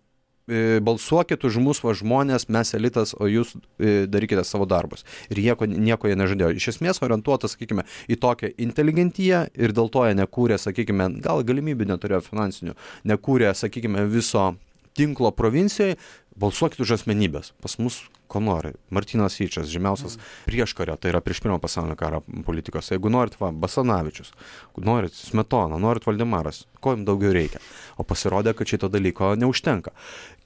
balsuokit už mus, žmonės, mes elitas, o jūs darykite savo darbus. Ir nieko jie nežadėjo. Iš esmės orientuotas, sakykime, į tokią inteligentiją ir dėl to jie nekūrė, sakykime, gal galimybių neturėjo finansinių, nekūrė, sakykime, viso tinklo provincijoje, balsuokit už asmenybės. Pas mus ko nori. Martynas Yčas, žymiausias prieškario, tai yra prieš pirmą pasaulinio karo politikos. Jeigu norit, Basanavičius, norit Smetona, norit Valdemaras, ko jums daugiau reikia. O pasirodė, kad šito dalyko neužtenka.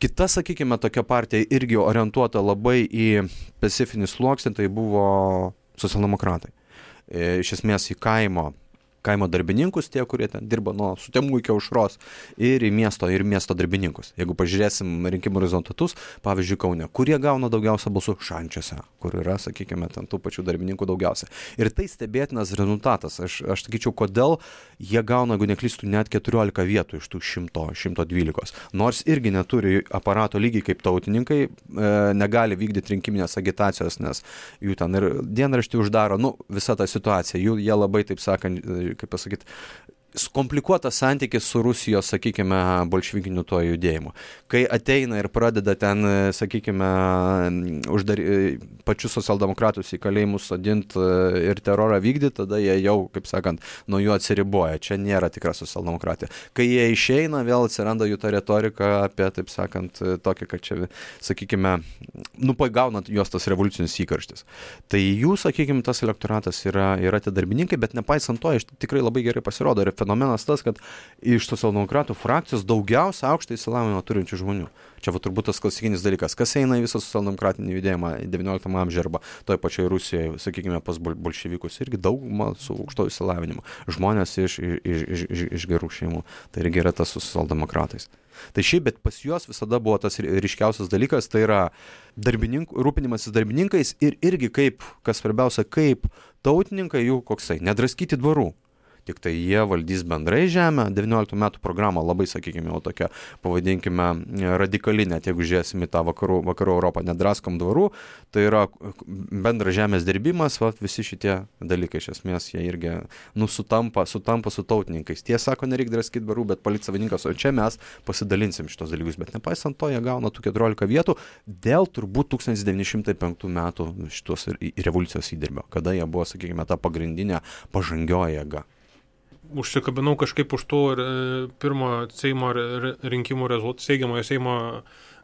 Kita, sakykime, tokia partija irgi orientuota labai į specifinį sluoksnį, tai buvo socialdemokratai. Iš esmės į kaimo darbininkus, tie, kurie ten dirba nuo Sutemų iki Aušros, ir į miesto darbininkus. Jeigu pažiūrėsim rinkimų rezultatus, pavyzdžiui, Kaune, kurie gauna daugiausia balsų Šančiuose, kur yra, sakykime, ten tų pačių darbininkų daugiausia. Ir tai stebėtinas rezultatas. Aš sakyčiau, kodėl jie gauna, jeigu neklystų, net 14 vietų iš tų 112. Nors irgi neturi aparato lygiai kaip tautininkai, negali vykdyti rinkiminės agitacijos, nes jų ten ir dienraštį uždaro, visa ta situacija. Jie labai, taip sakant, kaip pasakyti, komplikuotas santykis su Rusijos, sakykime, bolševikiniu tuo judėjimu. Kai ateina ir pradeda ten, sakykime, pačius socialdemokratus į kalėjimus sodinti ir terorą vykdyti, tada jie jau, kaip sakant, nuo jų atsiriboja. Čia nėra tikra socialdemokratija. Kai jie išeina, vėl atsiranda jų ta retorika apie, taip sakant, tokia, kad čia, sakykime, pagaunant juos tas revoliucinis įkarštis. Tai jų, sakykime, tas elektoratas yra tie darbininkai, bet nepaisant to, tikrai labai gerai pasirodo. Ir fenomenas tas, kad iš socialdemokratų frakcijos daugiausia aukštą išsilavinimą turinčių žmonių. Čia turbūt tas klasikinis dalykas. Kas eina į visą socialdemokratinį judėjimą 19 amžiuje arba toje pačioje Rusijoje, sakykime, pas bolševikus, irgi dauguma su aukšto išsilavinimu. Žmonės iš gerų šeimų. Tai irgi yra tas su socialdemokratais. Tai šiaip, bet pas juos visada buvo tas ryškiausias dalykas, tai yra rūpinimasis darbininkais ir irgi kaip, kas svarbiausia, kaip tautininkai jų koksai, nedraskyti dvarų. tik tai jie valdys bendrai žemę. 19 metų programa labai, sakykime, jau tokia, pavadinkime, radikali, net jeigu žiūrėsim į tą vakarų Europą, nedraskom dvarų, tai yra bendras žemės dirbimas, visi šitie dalykai, iš esmės, jie irgi sutampa su tautininkais. Tie sako, nereikia draskyti dvarų, bet palikti savininkas, o čia mes pasidalinsim šitos dalykus, bet nepaisant to, jie gauna tų 14 vietų dėl turbūt 1905 metų šitos revoliucijos įdirbio, kada jie buvo, sakykime, ta pagrindinė pažangioji jėga. Užsikabinau kažkaip už tų pirmo Seimo rinkimų steigiamojo Seimo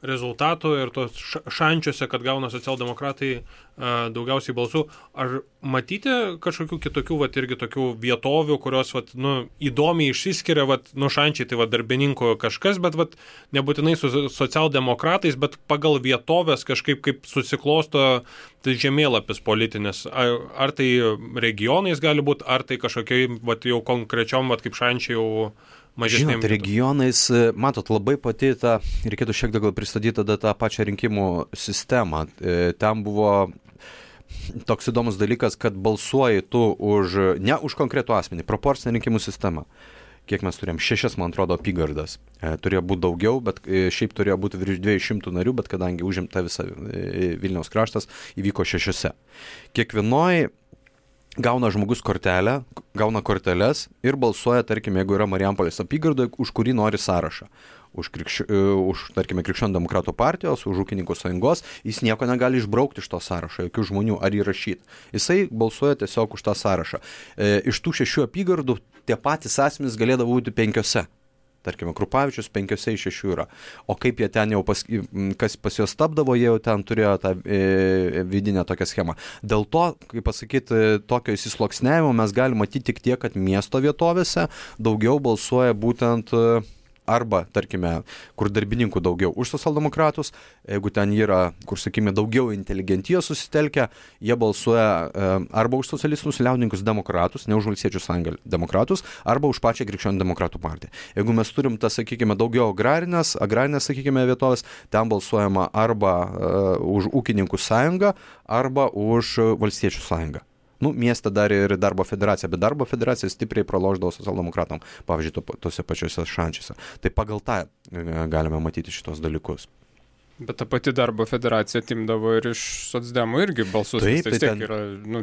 rezultatų ir tos šančiuose, kad gauna socialdemokratai daugiausiai balsų. Ar matyti kažkokių kitokių, irgi tokių vietovių, kurios, įdomiai išsiskiria, šančiai, tai darbininkų kažkas, bet, nebūtinai su socialdemokratais, bet pagal vietovės kažkaip kaip susiklosto tai žemėlapis politinis. Ar tai regionais gali būti, ar tai kažkokiai, jau konkrečiom, kaip šančiai jau mažesnėm. Žinot, regionais, matot, labai pati reikėtų šiek tiek pristatyti tada tą pačią rinkimų sistemą. Ten buvo toks įdomus dalykas, kad balsuoji tu ne už konkretų asmenį, proporcinę rinkimų sistemą. Kiek mes turėjom? 6, man atrodo, apygardas. Turėjo būti daugiau, bet šiaip turėjo būti virš 200 narių, bet kadangi užimta visa Vilniaus kraštas, įvyko 6. Kiekvienoj gauna žmogus kortelę, gauna korteles ir balsuoja, tarkim, jeigu yra Marijampolės apygardoje, už kurį nori sąrašą. Už tarkime, Krikščionių demokratų partijos, už ūkininkų sąjungos, jis nieko negali išbraukti iš to sąrašo, jokių žmonių ar įrašyti. Jisai balsuoja tiesiog už tą sąrašą. Iš tų 6 apygardų tie patys asmenys galėdavo būti 5. Tarkime, Krupavičius 5 iš 6 yra. O kaip jie ten jau, kas pas juos tapdavo, jie jau ten turėjo tą vidinę tokią schemą. Dėl to, kaip pasakyti, tokio įsisluoksniavimo mes galime matyti tik tiek, kad miesto vietovėse daugiau balsuoja būtent arba, tarkime, kur darbininkų daugiau už socialdemokratus, jeigu ten yra, kur, sakykime, daugiau inteligentijos susitelkę, jie balsuoja arba už socialistus liaudininkus demokratus, ne už Valstiečių sąjungą demokratus, arba už pačią Krikščionių demokratų partiją. Jeigu mes turim tą, sakykime, daugiau agrarinės, sakykime, vietovės, ten balsuojama arba už ūkininkų sąjungą, arba už Valstiečių sąjungą. Mieste dar ir darbo federacija, bet darbo federacija stipriai pralošdavo socialdemokratam, pavyzdžiui, tose pačiose šančiuose. Tai pagal tą galime matyti šitos dalykus. Bet ta pati darbo federacija atimdavo ir iš socdemų irgi balsus. Taip, tai vis tiek yra,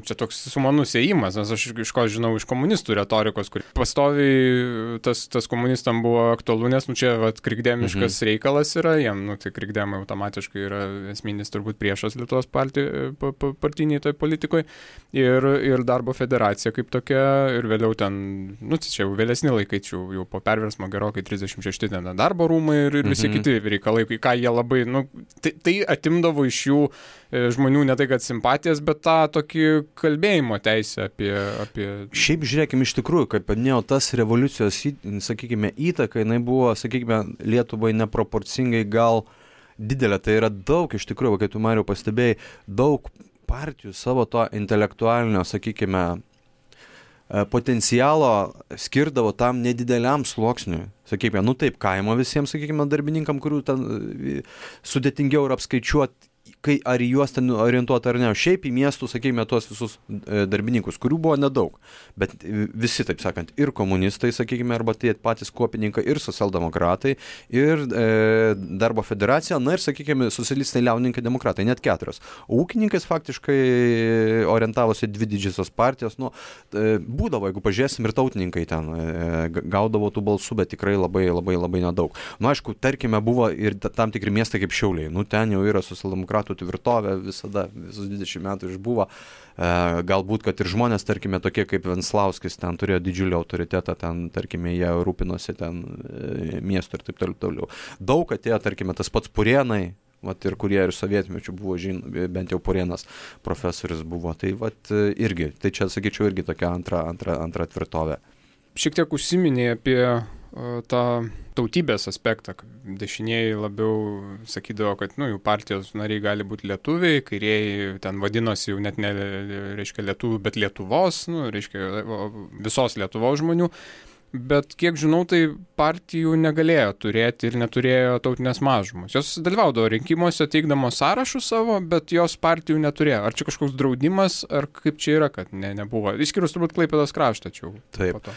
čia toks sumanus ėjimas, nes aš iš ko žinau iš komunistų retorikos, kur pastoviai tas komunistam buvo aktualu, nes čia krikdemiškas reikalas yra, jiem, tai krikdemai automatiškai yra esminis turbūt priešas Lietuvos partiniai toj politikoje ir darbo federacija kaip tokia ir vėliau ten, čia jau vėlesni laikai, jau po perversmo gerokai 36 ten darbo rūmai ir visi kiti reikalai, ką jie labai, tai atimdavo iš jų žmonių ne tai, kad simpatijas, bet tą tokį kalbėjimo teisę apie... Šiaip žiūrėkime iš tikrųjų, kaip paminėjau, tas revoliucijos, sakykime, įtaka, jinai buvo, sakykime, Lietuvai neproporcingai gal didelė. Tai yra daug, iš tikrųjų, kaip tu, Mariau, pastebėjai, daug partijų savo to intelektualinio, sakykime, potencialo skirdavo tam nedideliam sluoksniui. Sakykime, taip, kaimo visiems, sakykime, darbininkam, kurių ten sudėtingiau yra apskaičiuoti, ar į juos ten orientuoti ar ne. Šiaip į miestų, sakykime, tuos visus darbininkus, kurių buvo nedaug. Bet visi, taip sakant, ir komunistai, sakykime, arba tie patys kuopininkai, ir socialdemokratai, ir darbo federacija, ir, sakykime, socialistai, liaudininkai, demokratai, net 4. Ūkininkais faktiškai orientavosi 2 didžiosios partijos. Būdavo, jeigu pažiūrėsim, ir tautininkai ten gaudavo tų balsų, bet tikrai labai, labai, labai nedaug. Aišku, tarkime, buvo ir tam tikri miestai kaip Šiauliai. Ten jau yra socialdemokratų tvirtovė visada, visus 20 metų išbuvo. Galbūt, kad ir žmonės, tarkime, tokie kaip Venslauskis, ten turėjo didžiulį autoritetą, ten, tarkime, jie rūpinosi ten miestu ir taip toliau. Daug atėjo, tarkime, tas pats Purėnai, ir kurie ir sovietmečių buvo, bent jau Purėnas profesorius buvo. Tai irgi, tai čia, sakyčiau, irgi tokia antra tvirtovė. Šiek tiek užsiminė apie tą tautybės aspektą. Dešinieji labiau sakydavo, kad jų partijos nariai gali būti lietuviai, kairieji ten vadinosi jau net ne, reiškia, lietuvių, bet Lietuvos, reiškia, visos Lietuvos žmonių. bet kiek žinau, tai partijų negalėjo turėti ir neturėjo tautinės mažumos. Jos dalyvaudavo rinkimuose teikdamos sąrašus savo, bet jos partijų neturėjo. Ar čia kažkoks draudimas, ar kaip čia yra, kad nebuvo? Išskyrus turbūt Klaipėdos kraštą čia. Taip.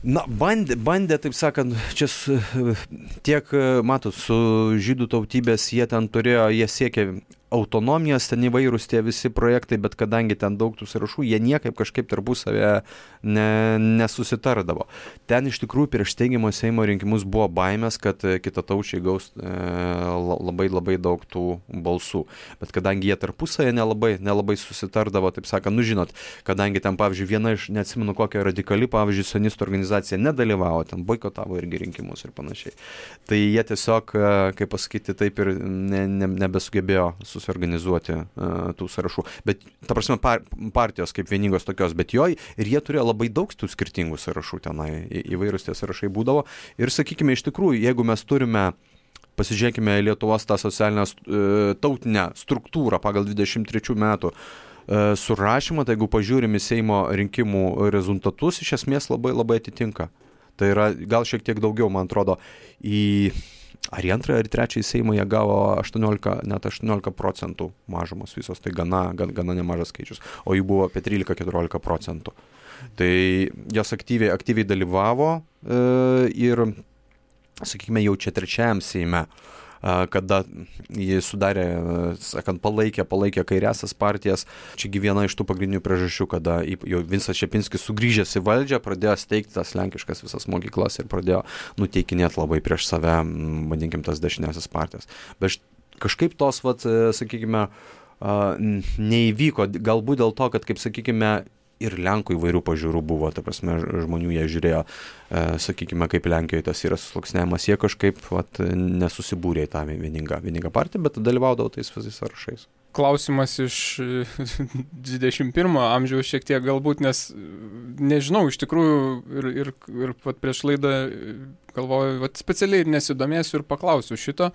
Na, bandė, taip sakant, čia tiek, matot, su žydų tautybės jie siekė autonomijos, ten įvairūs tie visi projektai, bet kadangi ten daug tų sąrašų, jie niekaip kažkaip tarpusavėje nesusitardavo. Ten iš tikrųjų prieš steigiamo Seimo rinkimus buvo baimės, kad kitataučiai gaus labai daug tų balsų. Bet kadangi jie tarpusavėje nelabai susitardavo, taip sakant, žinot, kadangi ten, pavyzdžiui, viena iš, neatsimenu kokia radikali, pavyzdžiui, sionistų organizacija nedalyvavo, ten boikotavo irgi rinkimus ir panašiai. Tai jie tiesiog, kaip pasakyti, taip ir nebesugebėjo susiorganizuoti tų sąrašų. Bet, ta prasme, partijos kaip vieningos tokios, bet ir jie turėjo labai daug tų skirtingų sąrašų tenai, įvairūs tie sąrašai būdavo. Ir, sakykime, iš tikrųjų, jeigu mes turime, pasižiūrėkime Lietuvos tą socialinę tautinę struktūrą pagal 23 metų surašymą, tai jeigu pažiūrime Seimo rinkimų rezultatus, iš esmės labai atitinka. Tai yra gal šiek tiek daugiau, man atrodo, ar į antrą, ar į trečią Seimą jie gavo 18% mažumos visos, tai gana nemažas skaičius, o jų buvo apie 13-14%. Tai jos aktyviai dalyvavo ir, sakykime, jau čia trečiajam Seime, kada jie sudarė, sakant, palaikė kairiasias partijas. Čiagi viena iš tų pagrindinių priežasčių, kada jau Vincas Čepinskis sugrįžęs į valdžią, pradėjo steigti tas lenkiškas visas mokyklas ir pradėjo nuteikinėti labai prieš save, vadinkim, tas dešiniasias partijas. Bet kažkaip tos, sakykime, neįvyko, galbūt dėl to, kad, kaip sakykime, ir Lenkų įvairių pažiūrų buvo, ta prasme, žmonių jie žiūrėjo, sakykime, kaip Lenkijoje tas yra susluoksniavimas, jie kažkaip nesusibūrė į tą vieningą partiją, bet dalyvaudavo tais visais sąrašais. Klausimas iš 21 amžiaus šiek tiek galbūt, nes nežinau, iš tikrųjų ir prieš laidą galvoju, specialiai ir nesidomėsiu ir paklausiu šito,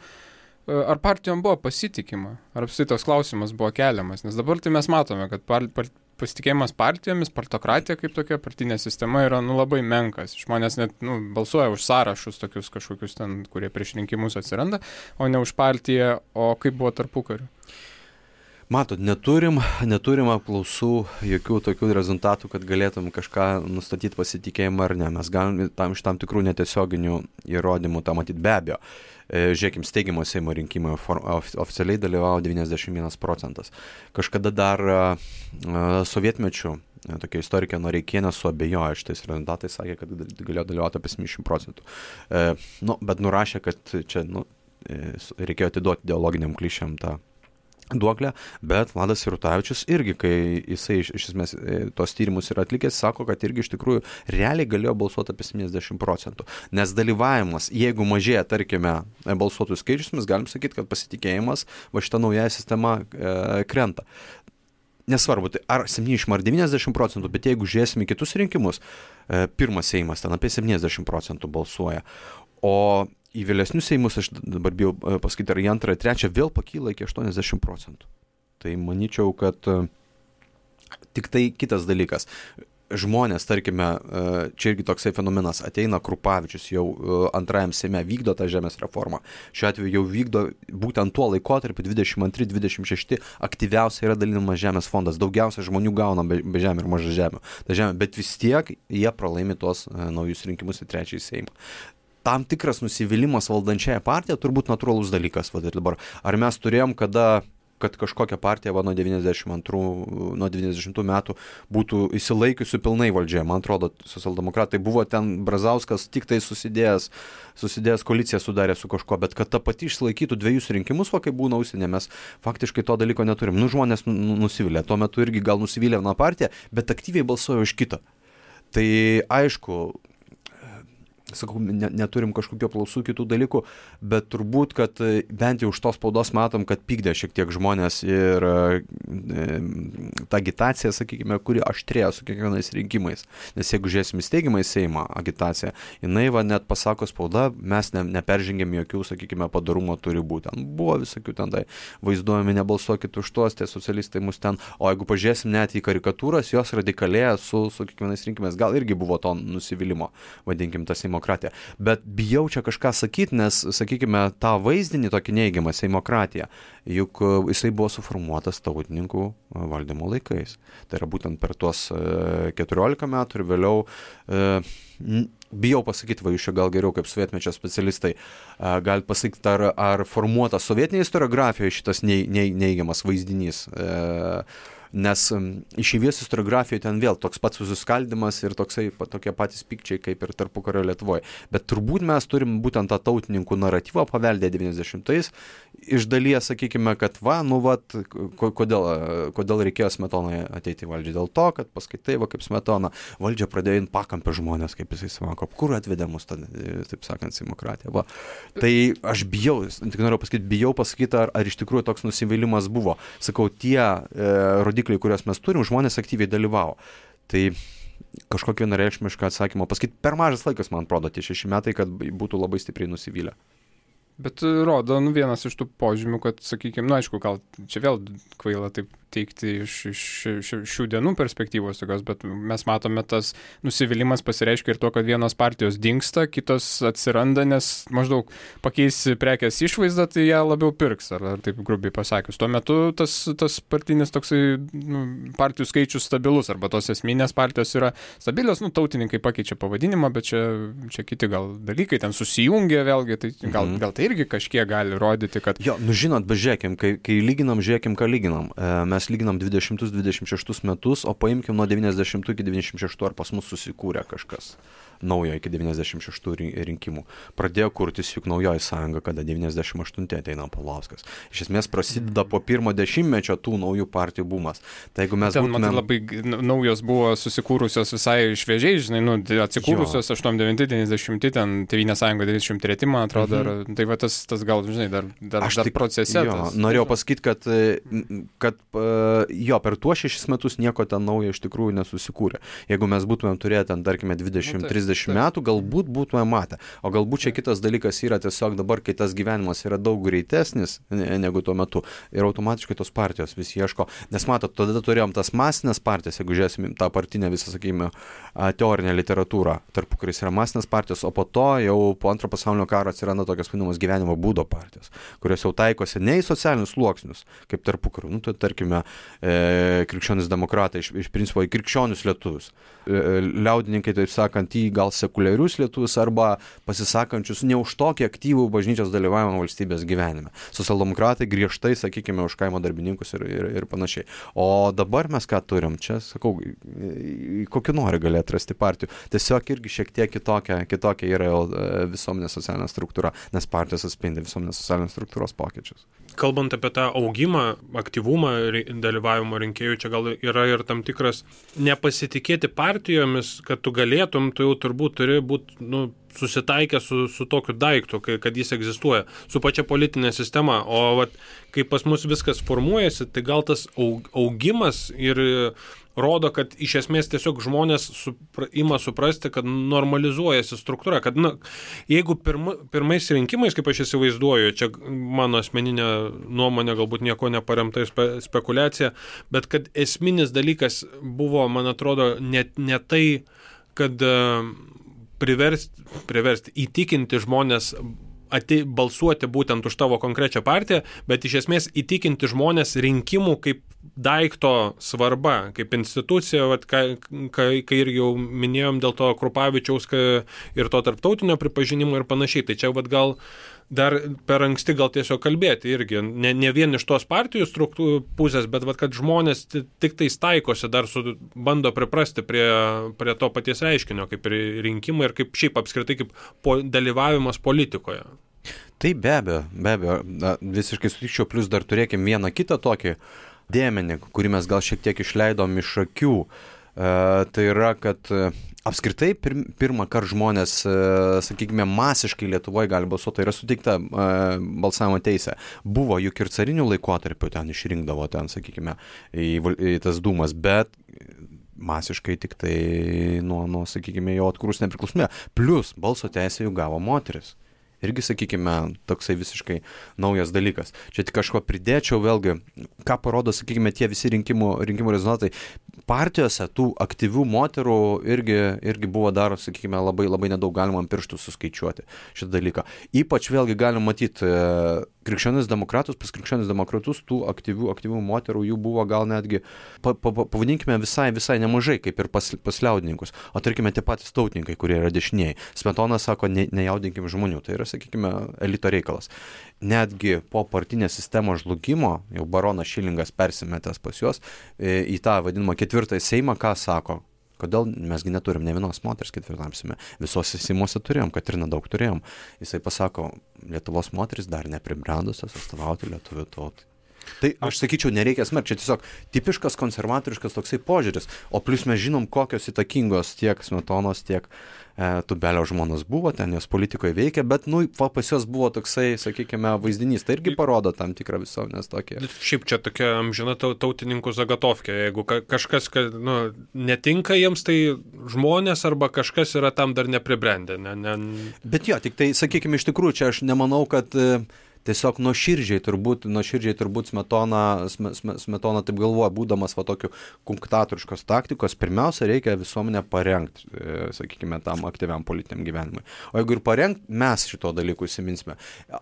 ar partijom buvo pasitikima, ar apskritai toks klausimas buvo keliamas, nes dabar tai mes matome, kad pasitikėjimas partijomis, partokratija kaip tokia partinė sistema yra labai menkas. Žmonės net balsuoja už sąrašus tokius kažkokius ten, kurie prieš rinkimus atsiranda, o ne už partiją, o kaip buvo tarpukariu. Matot, neturim apklausų, jokių tokių rezultatų, kad galėtum kažką nustatyti pasitikėjimą ar ne. Mes galim iš tam tikrų netiesioginių įrodymų tą matyti, be abejo. Žiūrėkim, steigimo Seimo rinkimai oficialiai dalyvavo 91%. Kažkada dar sovietmečių tokia istorikė Noreikienė suabejojo šitais rezultatais, sakė, kad galėjo dalyvauti apie 70%. Bet nurašė, kad čia reikėjo atiduoti ideologiniam klišėm tą duoklę, bet Vladas Sirutavičius irgi, kai jisai iš esmės tos tyrimus yra atlikęs, sako, kad irgi iš tikrųjų realiai galėjo balsuoti apie 70%. Nes dalyvavimas, jeigu mažėja, tarkime, balsuotojų skaičius, mes galim sakyti, kad pasitikėjimas šita nauja sistema krenta. Nesvarbu, tai ar 70 ar 90%, bet jeigu žiūrėsime kitus rinkimus, pirmas Seimas ten apie 70% balsuoja, o į vėlesnius Seimus, aš dabar bijau pasakyti, ar į antrą, trečią vėl pakyla iki 80%. Tai manyčiau, kad tik tai kitas dalykas. Žmonės, tarkime, čia irgi toksai fenomenas, ateina Krupavičius jau antrajam Seime, vykdo tą žemės reformą. Šiuo atveju jau vykdo būtent tuo laikotarpiu 22-26 aktyviausiai yra dalinamas žemės fondas. Daugiausia žmonių gauna be žemė ir maža žemė. Bet vis tiek jie pralaimi tuos naujus rinkimus į trečiąjį Seimą. Tam tikras nusivylimas valdančiąją partiją turbūt natūralus dalykas. Dabar. Ar mes turėjom, kad kažkokia partija nuo 90 metų būtų įsilaikiusi pilnai valdžioje? Man atrodo, socialdemokratai buvo ten, Brazauskas tik tai susidėjęs koaliciją sudarė su kažko, bet kad ta pati išsilaikytų dviejus rinkimus, kaip būna užsienė, mes faktiškai to dalyko neturim. Žmonės nusivylė. Tuo metu irgi gal nusivylė viena partija, bet aktyviai balsuoja už kitą. Tai aišku, sakau, neturim kažkokių aplausų kitų dalykų, bet turbūt, kad bent jau iš tos spaudos matom, kad pykdė šiek tiek žmonės ir ta agitacija, sakykime, kuri aštrėjo su kiekvienais rinkimais. Nes jeigu žiūrėsim įsteigimą į Seimą agitaciją, jinai net pasako spauda, mes neperžengėm jokių, sakykime, padarumo turi būti. Buvo visokių ten tai vaizduojami, nebalsuokit už tuos, tie socialistai mus ten, o jeigu pažiūrėsim net į karikatūras, jos radikalėja su kiekvienais rinkimais. Gal irgi buvo to nusivylimo, vadinkim, tas Seimokratija. Bet bijau čia kažką sakyti, nes, sakykime, tą vaizdinį tokį neigiamą Seimokratiją, juk jisai buvo suformuotas tautininkų valdymo laikais. Tai yra būtent per tuos 14 metų ir vėliau, bijau pasakyti, jūs čia gal geriau kaip sovietmečio specialistai, galite pasakyti, ar formuotas sovietinėje istoriografijoje šitas neigiamas vaizdinys. Nes išeivijos istoriografijoje ten vėl toks pats susiskaldimas ir tokie patys pykčiai kaip ir tarpukario Lietuvoje. Bet turbūt mes turim būtent tą tautininkų naratyvą paveldę 90-ais. Iš dalies, sakykime, kad kodėl reikėjo Smetonai ateiti į valdžią? Dėl to, kad paskaitai, kaip Smetona valdžia pradėjo in pakampę žmonės, kaip jisai sako, kur atvedė mus, taip sakant, Seimokratija. Tai aš tik noriu pasakyti, bijau pasakyti, ar iš tikrųjų toks nusivylimas buvo. Sakau, tie rodikliai, kuriuos mes turim, žmonės aktyviai dalyvavo. Tai kažkokį vienareikšmišką atsakymą pasakyti, per mažas laikas, man atrodo, tie 6 metai, kad būtų labai stipriai nusivylę. Bet rodo, vienas iš tų požymių, kad, sakykime, aišku, gal čia vėl kvaila taip teikti iš šių dienų perspektyvos tokios, bet mes matome, tas nusivylimas pasireiškia ir to, kad vienos partijos dingsta, kitos atsiranda, nes maždaug pakeis prekės išvaizdą, tai ją labiau pirks, ar taip grubiai pasakius. Tuo metu tas partinis toksai partijų skaičius stabilus, arba tos esminės partijos yra stabilios, tautininkai pakeičia pavadinimą, bet čia kiti gal dalykai ten susijungia vėlgi, tai gal tai irgi kažkiek gali rodyti, kad... Jo, žinot, bet žiūrėkim, kai lyginam, ką lyginam. Mes lyginam 20-26 metus, o paimkim nuo 90 iki 96, ar pas mus susikūrė kažkas naujo iki 96 rinkimų. Pradėjo kurtis juk naujoji sąjunga, kada 98 ateina Paulauskas. Iš esmės prasideda po pirmo dešimtmečio tų naujų partijų bumas. Tai jeigu mes būtume... Labai naujos buvo susikūrusios visai šviežiai, žinai, atsikūrusios 89-90, ten Tėvynės sąjunga 93, man atrodo, tai va tas gal, žinai, dar procese. Norėjau pasakyti, kad per tuos 6 metus nieko ten naujo iš tikrųjų nesusikūrė. Jeigu mes būtume turėję ten, tarkime, 20-30 metų, galbūt būtume matę. O galbūt čia kitas dalykas yra tiesiog dabar, kai tas gyvenimas yra daug greitesnis negu tuo metu ir automatiškai tos partijos vis ieško. Nes matot, tada turėjom tas masinės partijas, jeigu žiūrėsim tą partinę visą, sakykime, teorinę literatūrą, tarpukaris yra masinės partijos, o po to jau po Antro pasaulinio karo atsiranda tokios vadinamos gyvenimo būdo partijos, kurios jau taikosi ne į socialinius sluoksnius, kaip tarpukariu. Tai tarkime, krikščionis demokratai, iš principo į krikščionius lietuvius. Liaudininkai, taip sakant, į gal sekuliarius lietuvius arba pasisakančius ne už tokį aktyvų bažnyčios dalyvavimą valstybės gyvenime. Socialdemokratai griežtai, sakykime, už kaimo darbininkus ir panašiai. O dabar mes ką turim? Čia, sakau, kokį nori gali atrasti partijų. Tiesiog irgi šiek tiek kitokia yra visuomenės socialinė struktūra, nes partijos atspindi visuomenės socialinės struktūros pokyčius. Kalbant apie tą augimą, aktyvumą dalyvavimo rinkėjų, čia gal yra ir tam tikras nepasitikėti partijomis, kad tu galėtum, tu jau turbūt turi būti susitaikę su tokiu daiktu, kad jis egzistuoja, su pačia politinė sistema. O kai pas mus viskas formuojasi, tai gal tas augimas ir rodo, kad iš esmės tiesiog žmonės ima suprasti, kad normalizuojasi struktūra, kad jeigu pirmais rinkimais, kaip aš įsivaizduoju, čia mano asmeninė nuomonė, galbūt nieko neparemta spekulacija, bet kad esminis dalykas buvo, man atrodo, ne tai, kad priversti įtikinti žmonės balsuoti būtent už tavo konkrečią partiją, bet iš esmės įtikinti žmonės rinkimų kaip daikto svarba, kaip institucija, kai irgi jau minėjom dėl to Krupavičiaus ir to tarptautinio pripažinimo ir panašiai. Tai čia gal dar per anksti gal tiesiog kalbėti irgi, ne vien iš tos partijų pusės, bet kad žmonės tik tais taikosi, dar bando priprasti prie to paties reiškinio, kaip rinkimai ir kaip šiaip apskritai kaip dalyvavimas politikoje. Tai be abejo, visiškai sutikčiau, plus dar turėkim vieną kitą tokį dėmenį, kurį mes gal šiek tiek išleidom iš akių. Tai yra, kad apskritai pirmą kartą žmonės, sakykime, masiškai Lietuvoje gali balsuoti, tai yra suteikta balsavimo teisė. Buvo juk ir carinių laikotarpių ten išrinkdavo ten, sakykime, į tas dūmas, bet masiškai tik tai nuo sakykime, jau atkūrus nepriklausomybę. Plus balso teisę jau gavo moteris. Irgi, sakykime, toksai visiškai naujas dalykas. Čia tik kažko pridėčiau vėlgi, ką parodo, sakykime, tie visi rinkimų rezultatai. Partijose tų aktyvių moterų irgi buvo dar, sakykime, labai nedaug galima ant pirštų suskaičiuoti šitą dalyką. Ypač vėlgi galim matyti krikščionis demokratus, pas krikščionis demokratus tų aktyvių moterų jų buvo gal netgi, pavadinkime, visai nemažai, kaip ir pas liaudininkus. O tarkime, tie patys tautininkai, kurie yra dešinieji. Smetona sako, nejaudinkim žmonių. Tai yra, sakykime, elito reikalas. Netgi po partinės sistemos žlugimo, jau baronas Šilingas persimetęs pas juos, į tą vadinamą ketvirtąjį Seimą, ką sako? Kodėl mesgi neturim ne vienos moters ketvirtam Seime? Visose Seimuose turėjom, Katrina daug turėjom. Jisai pasako, Lietuvos moteris dar nepribrendusios atstovauti lietuvių tautai. Tai aš sakyčiau, nereikia smerkti, čia tiesiog tipiškas konservatoriškas toksai požiūris, o plus mes žinom, kokios įtakingos tiek Smetonos, tiek Tubelio žmonos buvo, ten jos politikoje veikia, bet, pas jos buvo toksai, sakykime, vaizdinys, tai irgi parodo tam tikrą visuomenės tokį. Šiaip čia tokia amžina tautininkų zagatovkė, jeigu kažkas netinka jiems, tai žmonės arba kažkas yra tam dar nepribrendę. Bet jo, tik tai, sakykime, iš tikrųjų, čia aš nemanau, kad tiesiog nuoširdžiai turbūt Smetona taip galvoja, būdamas va tokiu kunktatoriškos taktikos, pirmiausia reikia visuomenę parengti, sakykime, tam aktyviam politiniam gyvenimui. O jeigu ir parengti, mes šito dalykų įsiminsime.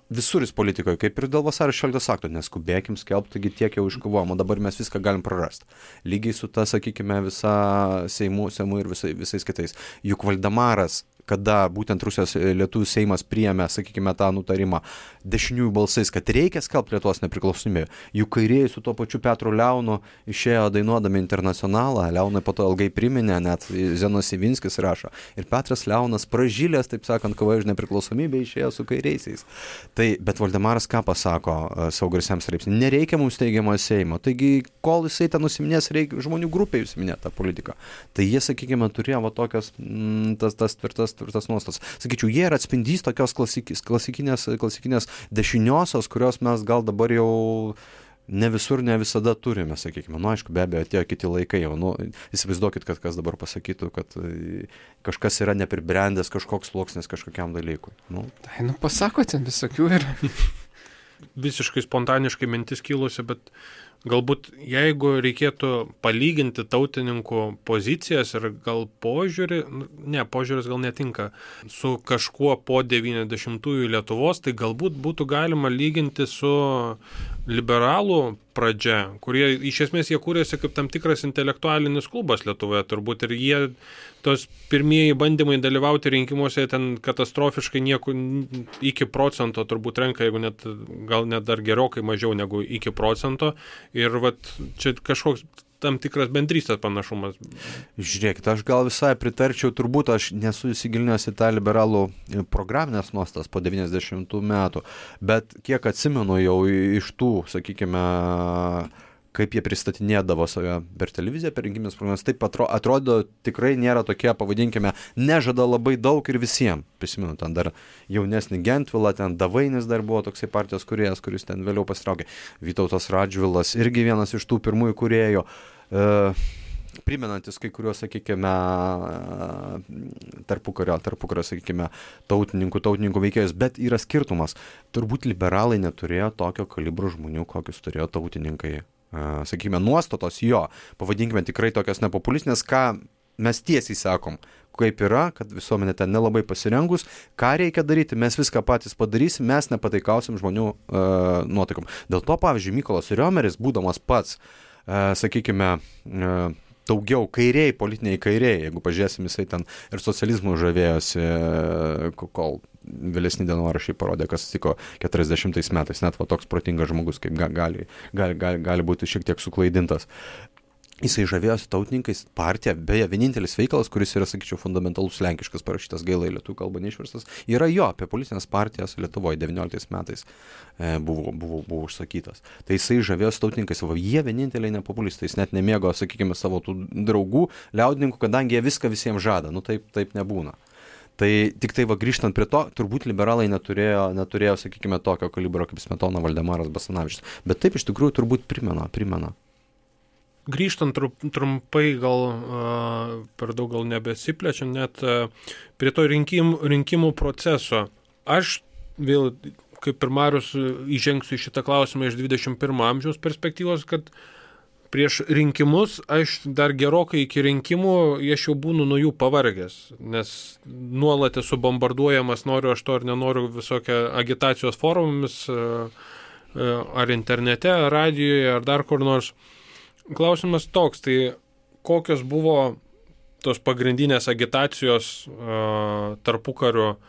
Visuris politikoje, kaip ir dėl vasario 16 akto, neskubėkim skelbti, taigi tiek jau iškovojom, o dabar mes viską galim prarasti. Lygiai su ta, sakykime, visa Seimu ir visais kitais. Juk Valdemaras, kada būtent Rusijos lietuvių Seimas priėmė, sakykime, tą nutarimą dešiniųjų balsais, kad reikia skelbti Lietuvos nepriklausomybę. Juk kairieji su tuo pačiu Petru Leonu išėjo dainuodami Internacionalą, Leonai po to ilgai priminė, net Zenas Ivinskis rašo. Ir Petras Leonas pražylės, taip sakant, kovoja už nepriklausomybę, išėjo su kairiaisiais. Tai, bet Valdemaras ką pasako savo garsiam straipsnį? Nereikia mums teigiamo Seimo. Taigi, kol jisai ten nusiminės, reikia žmonių grupė užsiminė tą politiką. Tai jie, sakykime, turėjo va tokias tas tvirtas nuostas. Sakyčiau, jie yra atspindys tokios klasikinės dešiniosios, kurios mes gal dabar jau ne visur, ne visada turime, sakykime. Aišku, be abejo, atėjo kiti laikai jau. Įsivaizduokit, kad kas dabar pasakytų, kad kažkas yra nepribrendęs kažkoks sluoksnis kažkokiam dalykui. Tai, pasakote, visokių yra. Visiškai spontaniškai mintis kilusi, bet galbūt jeigu reikėtų palyginti tautininkų pozicijas ir gal požiūris gal netinka, su kažkuo po 90-ųjų Lietuvos, tai galbūt būtų galima lyginti su liberalų pradžia, kurie iš esmės jie kūrėsi kaip tam tikras intelektualinis klubas Lietuvoje turbūt, ir jie tos pirmieji bandymai dalyvauti rinkimuose ten katastrofiškai nieko iki procento turbūt renka, jeigu gal net dar gerokai mažiau negu iki procento, ir čia kažkoks tam tikras bendrystės panašumas. Žiūrėkit, aš gal visai pritarčiau, turbūt aš nesu įsigilinęs į tą liberalų programinės nuostas po 90 metų, bet kiek atsimenu jau iš tų, sakykime, kaip jie pristatinėdavo save per televiziją, per rinkiminės programas, taip atrodo tikrai nėra tokie, pavadinkime, nežada labai daug ir visiems. Prisimenu, ten dar jaunesnį Gentvilą, ten Davainis dar buvo toksai partijos kūrėjas, kuris ten vėliau pasitraukė. Vytautas Radžvilas irgi vienas iš tų pirmųjų kūrėjų. Primenantis kai kuriuos, sakykime, tarpukario, sakykime, tautininkų veikėjus, bet yra skirtumas. Turbūt liberalai neturėjo tokio kalibro žmonių, kokius turėjo tautininkai. Sakykime, nuostatos jo, pavadinkime tikrai tokios nepopulistinės, ką mes tiesiai sakom, kaip yra, kad visuomenė ten nelabai pasirengus, ką reikia daryti, mes viską patys padarysim, mes nepataikausim žmonių nuotaikom. Dėl to, pavyzdžiui, Mykolas Riomeris, būdamas pats, sakykime, daugiau kairiai, politiniai kairiai, jeigu pažiūrėsim, jisai ten ir socializmų žavėjosi, kol vėlesni dienoraščiai parodė, kas atsitiko 40 metais, net toks protingas žmogus, kaip gali būti šiek tiek suklaidintas. Jisai žavėjosi tautininkais, partija, beje, vienintelis veikalas, kuris yra, sakyčiau, fundamentalus lenkiškas parašytas, gaila į lietuvių kalbą neišverstas, yra jo apie politinės partijas Lietuvoje 19 metais buvo užsakytas. Tai jisai žavėjosi tautininkais, jie vieninteliai nepopulistai, jis net nemėgo, sakykime, savo tų draugų, liaudininkų, kadangi jie viską visiems žada, taip nebūna. Tai tik tai grįžtant prie to, turbūt liberalai neturėjo, sakykime, tokio kalibro kaip Smetona, Valdemaras, Basanavičius, bet taip iš tikrųjų turbūt primena. Grįžtant trumpai, gal per daug gal nebesiplečiam, net prie to rinkimų proceso. Aš vėl, kaip ir Marius, įžengsiu į šitą klausimą iš 21 amžiaus perspektyvos, kad prieš rinkimus, aš dar gerokai iki rinkimų, aš jau būnu nuo jų pavargęs, nes nuolat esu bombarduojamas, noriu aš to ar nenoriu, visokia agitacijos forumomis, ar internete, ar radijoje, ar dar kur nors. Klausimas toks, tai kokios buvo tos pagrindinės agitacijos tarpukario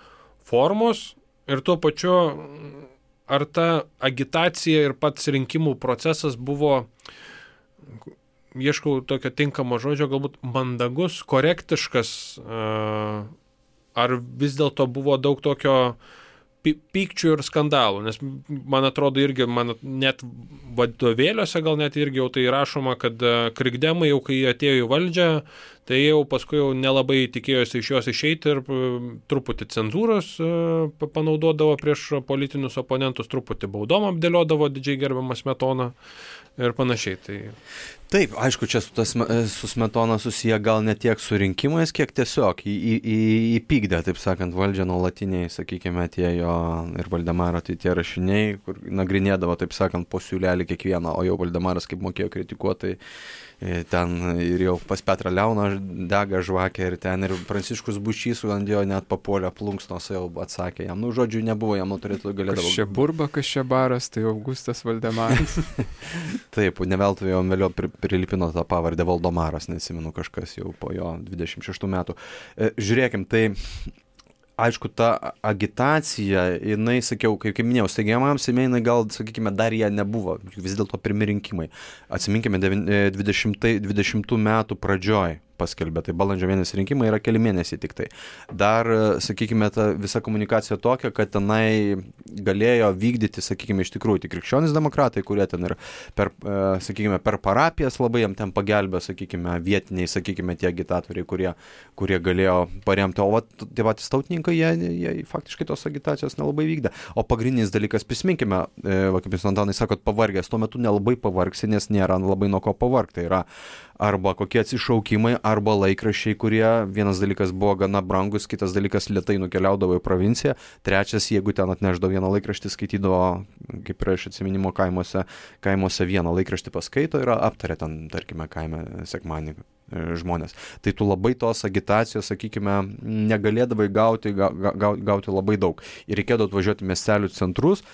formos ir tuo pačiu, ar ta agitacija ir pats rinkimų procesas buvo, ieškau tokio tinkamo žodžio, galbūt mandagus, korektiškas, ar vis dėlto buvo daug tokio pykčių ir skandalų, nes man atrodo irgi, net vadovėliuose gal net irgi jau tai rašoma, kad krikdemai jau kai atėjo į valdžią, tai jau paskui jau nelabai tikėjosi iš jos išeiti ir truputį cenzūros panaudodavo prieš politinius oponentus, truputį baudom apdėliodavo didžiai gerbiamą Smetoną ir panašiai. Taip, aišku, čia su Smetona susiję gal ne tiek su rinkimais, kiek tiesiog įpykdė, taip sakant, valdžią nuolatiniai, sakykime, tie jo ir Valdemaro tie rašiniai, kur nagrinėdavo, taip sakant, po siūlelį kiekvieną, o jau Valdemaras kaip mokėjo kritikuoti, ten ir jau pas Petrą Leoną dega žvakė ir ten ir Pranciškus Bučys ant jo net papuolė plunksnos, jau atsakė jam, žodžiu, nebuvo, jam turėtų galėdavo. Kas čia burba, kas čia baras, tai Augustas Valdemaras. Taip, neveltui jau vėliau prilipino tą pavardę Valdomaras, neatsimenu, kažkas jau po jo 26 metų. Žiūrėkim, tai aišku, ta agitacija, jinai, sakiau, kaip minėjau, steigiamam Seime, jinai gal, sakykime, dar jie nebuvo, vis dėlto pirmi rinkimai. Atsiminkime, 20 metų pradžioj paskelbė, tai balandžio mėnesį rinkimai yra keli mėnesiai tik tai. Dar, sakykime, ta visa komunikacija tokia, kad tenai galėjo vykdyti, sakykime, iš tikrųjų tik krikščionys demokratai, kurie ten ir sakykime, per parapijas labai jam ten pagelbė, sakykime, vietiniai, sakykime, tie agitatoriai, kurie galėjo paremti, o tie patys tautininkai, jie faktiškai tos agitacijos nelabai vykdė. O pagrindinis dalykas, prisiminkime, kaip jūs Antanai sakot, pavargęs, tuo metu nelabai pavargsi, nes nėra labai nuo ko pavargti. Tai yra arba kokie atsišaukimai, arba laikraščiai, kurie vienas dalykas buvo gana brangus, kitas dalykas lėtai nukeliaudavo į provinciją, trečias, jeigu ten atneždavo vieną laikraštį, skaitydavo, kaip ir iš atsiminimo kaimuose vieną laikraštį paskaito ir aptarė ten, tarkime, kaime sekmadienį žmonės. Tai tu labai tos agitacijos, sakykime, negalėdavai gauti labai daug. Ir reikėdavo atvažiuoti miestelių centrus.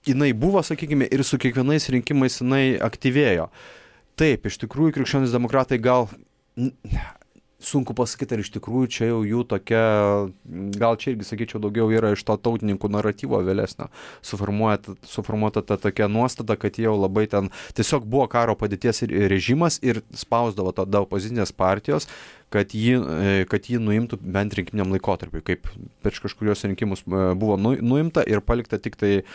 Jinai buvo, sakykime, ir su kiekvienais rinkimais jinai aktyvėjo. Taip, iš tikrųjų, krikščionys demokratai gal sunku pasakyti, ar iš tikrųjų čia jau jų tokia, gal čia irgi, sakyčiau, daugiau yra iš to tautininkų naratyvo vėlesnio suformuota ta tokia nuostata, kad jau labai ten tiesiog buvo karo padėties režimas ir spausdavo tada opozicinės partijos, kad jį nuimtų bent rinkiminiam laikotarpiu, kaip prieš kažkurios rinkimus buvo nuimta ir palikta tik tai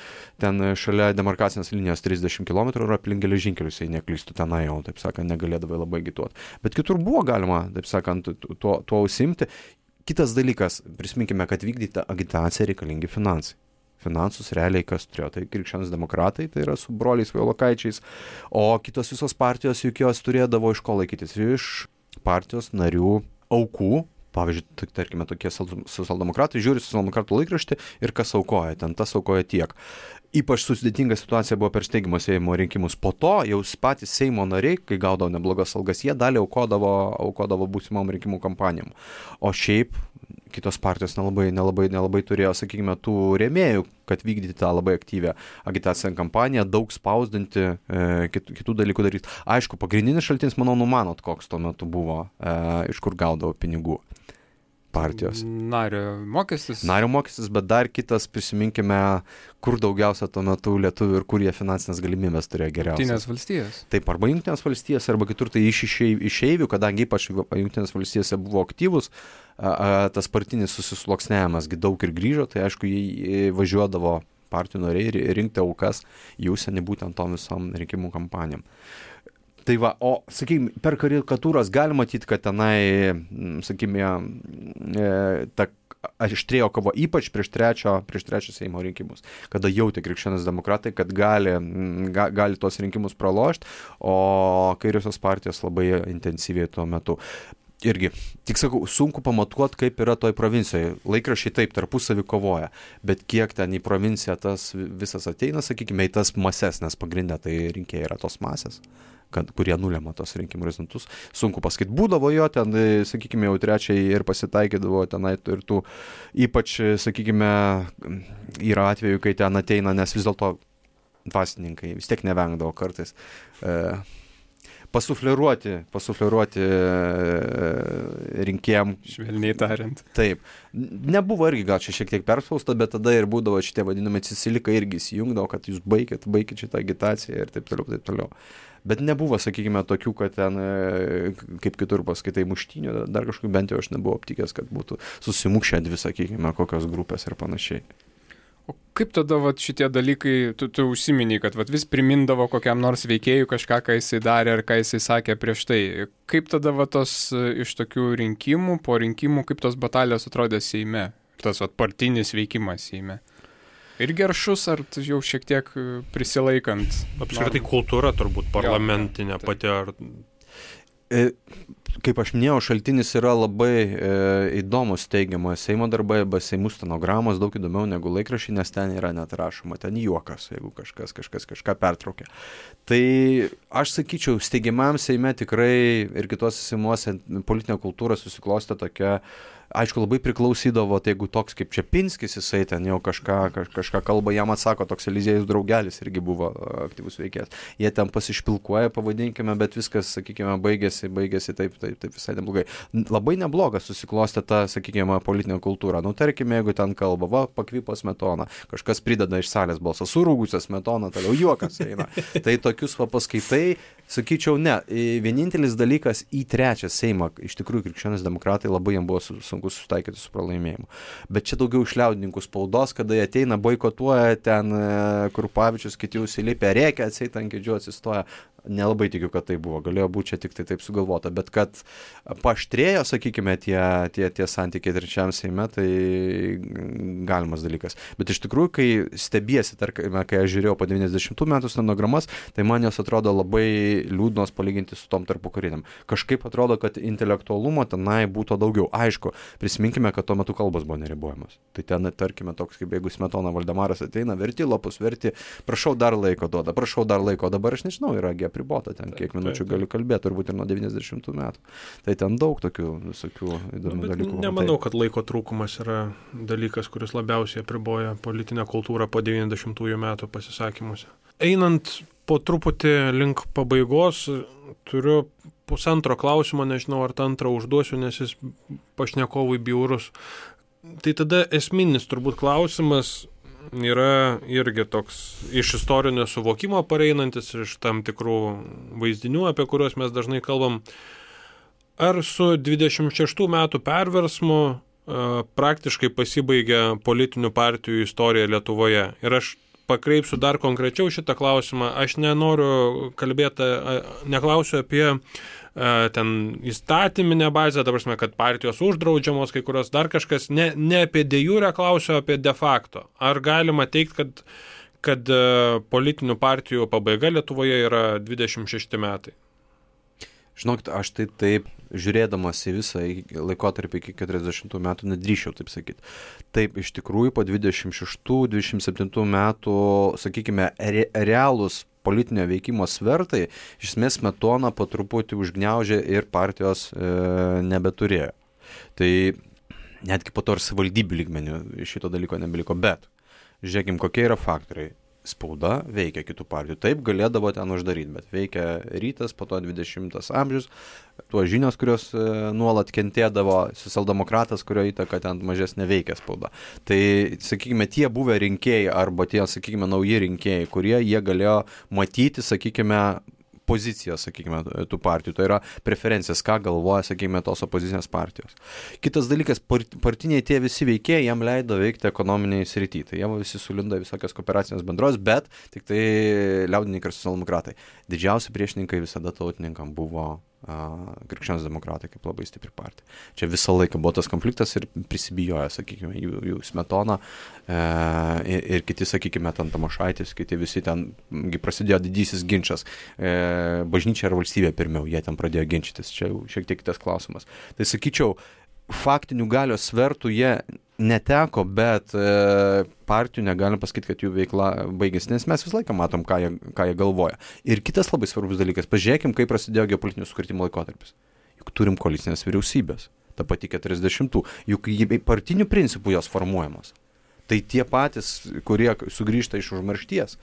ten šalia demarkacinės linijos 30 km ir aplink geležinkelius, jei neklystų tenai jau, taip sakant, negalėdavai labai agituoti. Bet kitur buvo galima, taip sakant, tuo užsiimti. Kitas dalykas, prisiminkime, kad vykdyti agitaciją reikalingi finansai. Finansus realiai kas turėjo, tai krikščionys demokratai, tai yra su broliais Vailokaičiais, o kitos visos partijos juk jos turėdavo iš ko laikytis, iš partijos narių aukų. Pavyzdžiui, tarkime, tokie socialdemokratai žiūri socialdemokratų laikraštį ir kas aukoja, ten tas aukoja tiek. Ypač sudėtinga situacija buvo per steigimo Seimo rinkimus. Po to jau patys Seimo nariai, kai gaudavo neblogas algas, jie dalį aukodavo būsimom rinkimų kampanijom. O šiaip kitos partijos nelabai turėjo, sakykime, tų rėmėjų, kad vykdyti tą labai aktyvę agitacinę kampaniją, daug spausdinti, kitų dalykų daryti. Aišku, pagrindinis šaltinis, manau, numanot, koks tuo metu buvo, iš kur gaudavo pinigų. partijos. Nario mokestis, Bet dar kitas, prisiminkime, kur daugiausia tuo metu lietuvių ir kur jie finansinės galimybės turėjo geriausias. Jungtinės valstijos. Taip, arba Jungtinės valstijos, arba kitur tai iš išeivių, kadangi ypač Jungtinės valstijose buvo aktyvus, tas partinis susisluoksniavimas daug ir grįžo, tai aišku, jie važiuodavo partijų nariai rinkti aukas į užsienį būtent tom visom rinkimų kampanijom. Tai va, o, sakykime, per karikatūras galima matyti, kad tenai, sakykime, ta aštrėjo kova ypač prieš trečio Seimo rinkimus, kada jautė krikščionys demokratai, kad gali tos rinkimus pralošti, o kairiosios partijos labai intensyviai tuo metu. Irgi, tik sakau, sunku pamatuoti, kaip yra toj provincijoje. Laikraščiai taip tarpusavį kovoja, bet kiek ten į provinciją tas visas ateina, sakykime, į tas mases, nes pagrindė tai rinkėjai yra tos masės, kurie nulema tos rinkimų rezultatus. Sunku pasakyti, būdavo jo ten, sakykime, jau trečiai ir pasitaikydavo tenai ir tų, ypač, sakykime, yra atveju, kai ten ateina, nes vis dėlto dvasininkai vis tiek nevengdavo kartais pasufleruoti rinkėjam. Švelniai tariant. Taip. Nebuvo irgi gal čia šiek tiek perspausta, bet tada ir būdavo šitie vadinami Cicilikai irgi įsijungdavo, kad jūs baikit šitą agitaciją ir taip toliau. Bet nebuvo, sakykime, tokių, kad ten, kaip kitur paskaitai, muštynių, dar kažkokių, bent jau aš nebuvau aptikęs, kad būtų susimukšę dvi, sakykime, kokios grupės ir panašiai. O kaip tada šitie dalykai, tu užsiminiai, kad vis primindavo kokiam nors veikėjui kažką, ką jisai darė ar ką jisai sakė prieš tai. Kaip tada tos iš tokių rinkimų, po rinkimų, kaip tos batalijos atrodė Seime? Tas partinis veikimas Seime. Ir geršus, ar jau šiek tiek prisilaikant? Apskritai kultūra turbūt parlamentinė pati ar... Kaip aš minėjau, šaltinis yra labai įdomus teigiamo Seimo darbai, arba Seimų stenogramos daug įdomiau negu laikraščiai, nes ten yra net rašoma, ten juokas, jeigu kažkas kažką pertraukia. Tai aš sakyčiau, steigiamam Seime tikrai ir kitose Seimuose politinė kultūra susiklostė tokia, aišku, labai priklausydavo, tai jeigu toks kaip Čepinskis, jisai ten jau kažką kalba, jam atsako, toks Eliziejus Draugelis irgi buvo aktyvus veikėjas. Jie ten pasišpilkuoja, pavadinkime, bet viskas, sakykime, baigėsi taip visai neblogai. Labai neblogas susiklostė ta, sakykime, politinė kultūra. Nu, tarkime, jeigu ten kalba, pakvipo Smetona, kažkas prideda iš salės balsą, surūgusią Smetoną, toliau juokas eina. Tai tokius paskaitai, sakyčiau, ne. Vienintelis dalykas į trečią Seimą, iš tikrųjų, krikščionys demokratai labai jam buvo sunku susitaikyti su pralaimėjimu. Bet čia daugiau iš liaudininkų spaudos, kada jie ateina, boikotuoja ten Krupavičius, kiti užsilipę, rėkia, atseit ant kėdžių atsistoja. Nelabai tikiu, kad tai buvo. Galėjo būti čia tik tai taip sugalvota. Bet kad paaštrėjo, sakykime, tie santykiai trečiam Seime, tai galimas dalykas. Bet iš tikrųjų, kai stebiesi, tarkime, kai aš žiūrėjau po 90 metų stenogramas, tai man jos atrodo labai liūdnos palyginti su tom tarpukariniam. Kažkaip atrodo, kad intelektualumo tenai būtų daugiau. Aišku, prisiminkime, kad tuo metu kalbos buvo neribojamas. Tai ten, tarkime, toks kaip jeigu Smetona Valdemaras ateina, verti lapus, prašau dar laiko duoda, dabar aš nežinau, yra apribota ten, kiek minučių galiu kalbėti, turbūt ir nuo 90 metų. Tai ten daug tokių visokių įdomių dalykų. Nemanau, kad laiko trūkumas yra dalykas, kuris labiausiai apriboja politinę kultūrą po 90-ųjų metų pasisakymuose. Einant po truputį link pabaigos, turiu pusantro klausimo, nežinau, ar tą antrą užduosiu, nes jis pašnekovui bjaurus. Tai tada esminis turbūt klausimas yra irgi toks iš istorinio suvokimo pareinantis, iš tam tikrų vaizdinių, apie kuriuos mes dažnai kalbam. Ar su 26 metų perversmu praktiškai pasibaigė politinių partijų istorija Lietuvoje? Ir aš pakreipsiu dar konkrečiau šitą klausimą. Aš nenoriu kalbėti, neklausiu apie ten įstatyminę bazę, ta prasme, kad partijos uždraudžiamos, kai kurios dar kažkas, ne apie de jure klausiu, apie de facto. Ar galima teikti, kad politinių partijų pabaiga Lietuvoje yra 26 metai? Žinokit, aš tai taip, žiūrėdamas į visą laikotarpį iki 40 metų, nedrįščiau taip sakyti. Taip, iš tikrųjų, po 26-27 metų, sakykime, realūs politinio veikimo svertai, iš esmės Smetona po truputį užgniaužė ir partijos nebeturėjo. Tai netgi po to ir savivaldybių lygmenių šito dalyko nebeliko. Bet žiūrėkim, kokie yra faktoriai. spauda veikia kitų partijų. Taip galėdavo ten uždaryti, bet veikia Rytas, po to 20 amžius, tuo žinios, kurios nuolat kentėdavo, socialdemokratas, kurio įtaka ten mažesnė veikia spauda. Tai, sakykime, tie buvę rinkėjai arba tie, sakykime, nauji rinkėjai, kurie jie galėjo matyti, sakykime, pozicijas, sakykime, tų partijų, tai yra preferencijas, ką galvoja, sakykime, tos opozicinės partijos. Kitas dalykas, partiniai tie visi veikėjai, jam leido veikti ekonominiai srity, tai jie visi sulindo visokias kooperacinės bendros, bet tik tai liaudininkai ir socialdemokratai. Didžiausi priešininkai visada tautininkam buvo krikščionys demokratai kaip labai stipri partija. Čia visą laiką buvo tas konfliktas ir prisibijojo, sakykime, jų Smetona ir kiti, sakykime, ten Tamošaitis, kiti visi ten prasidėjo didysis ginčas. Bažnyčia ar valstybė pirmiau, jie ten pradėjo ginčytis. Čia jau šiek tiek kitas klausimas. Tai sakyčiau, faktinių galios svertų jie neteko, bet partijų negalim pasakyti, kad jų veikla baigėsi, nes mes visą laiką matom, ką jie galvoja. Ir kitas labai svarbus dalykas, pažiūrėkim, kaip prasidėjo geopolitinių sukrėtimų laikotarpis. Juk turim koalicinės vyriausybės, ta pati 40-ų, juk partinių principų jos formuojamos. Tai tie patys, kurie sugrįžta iš užmaršties,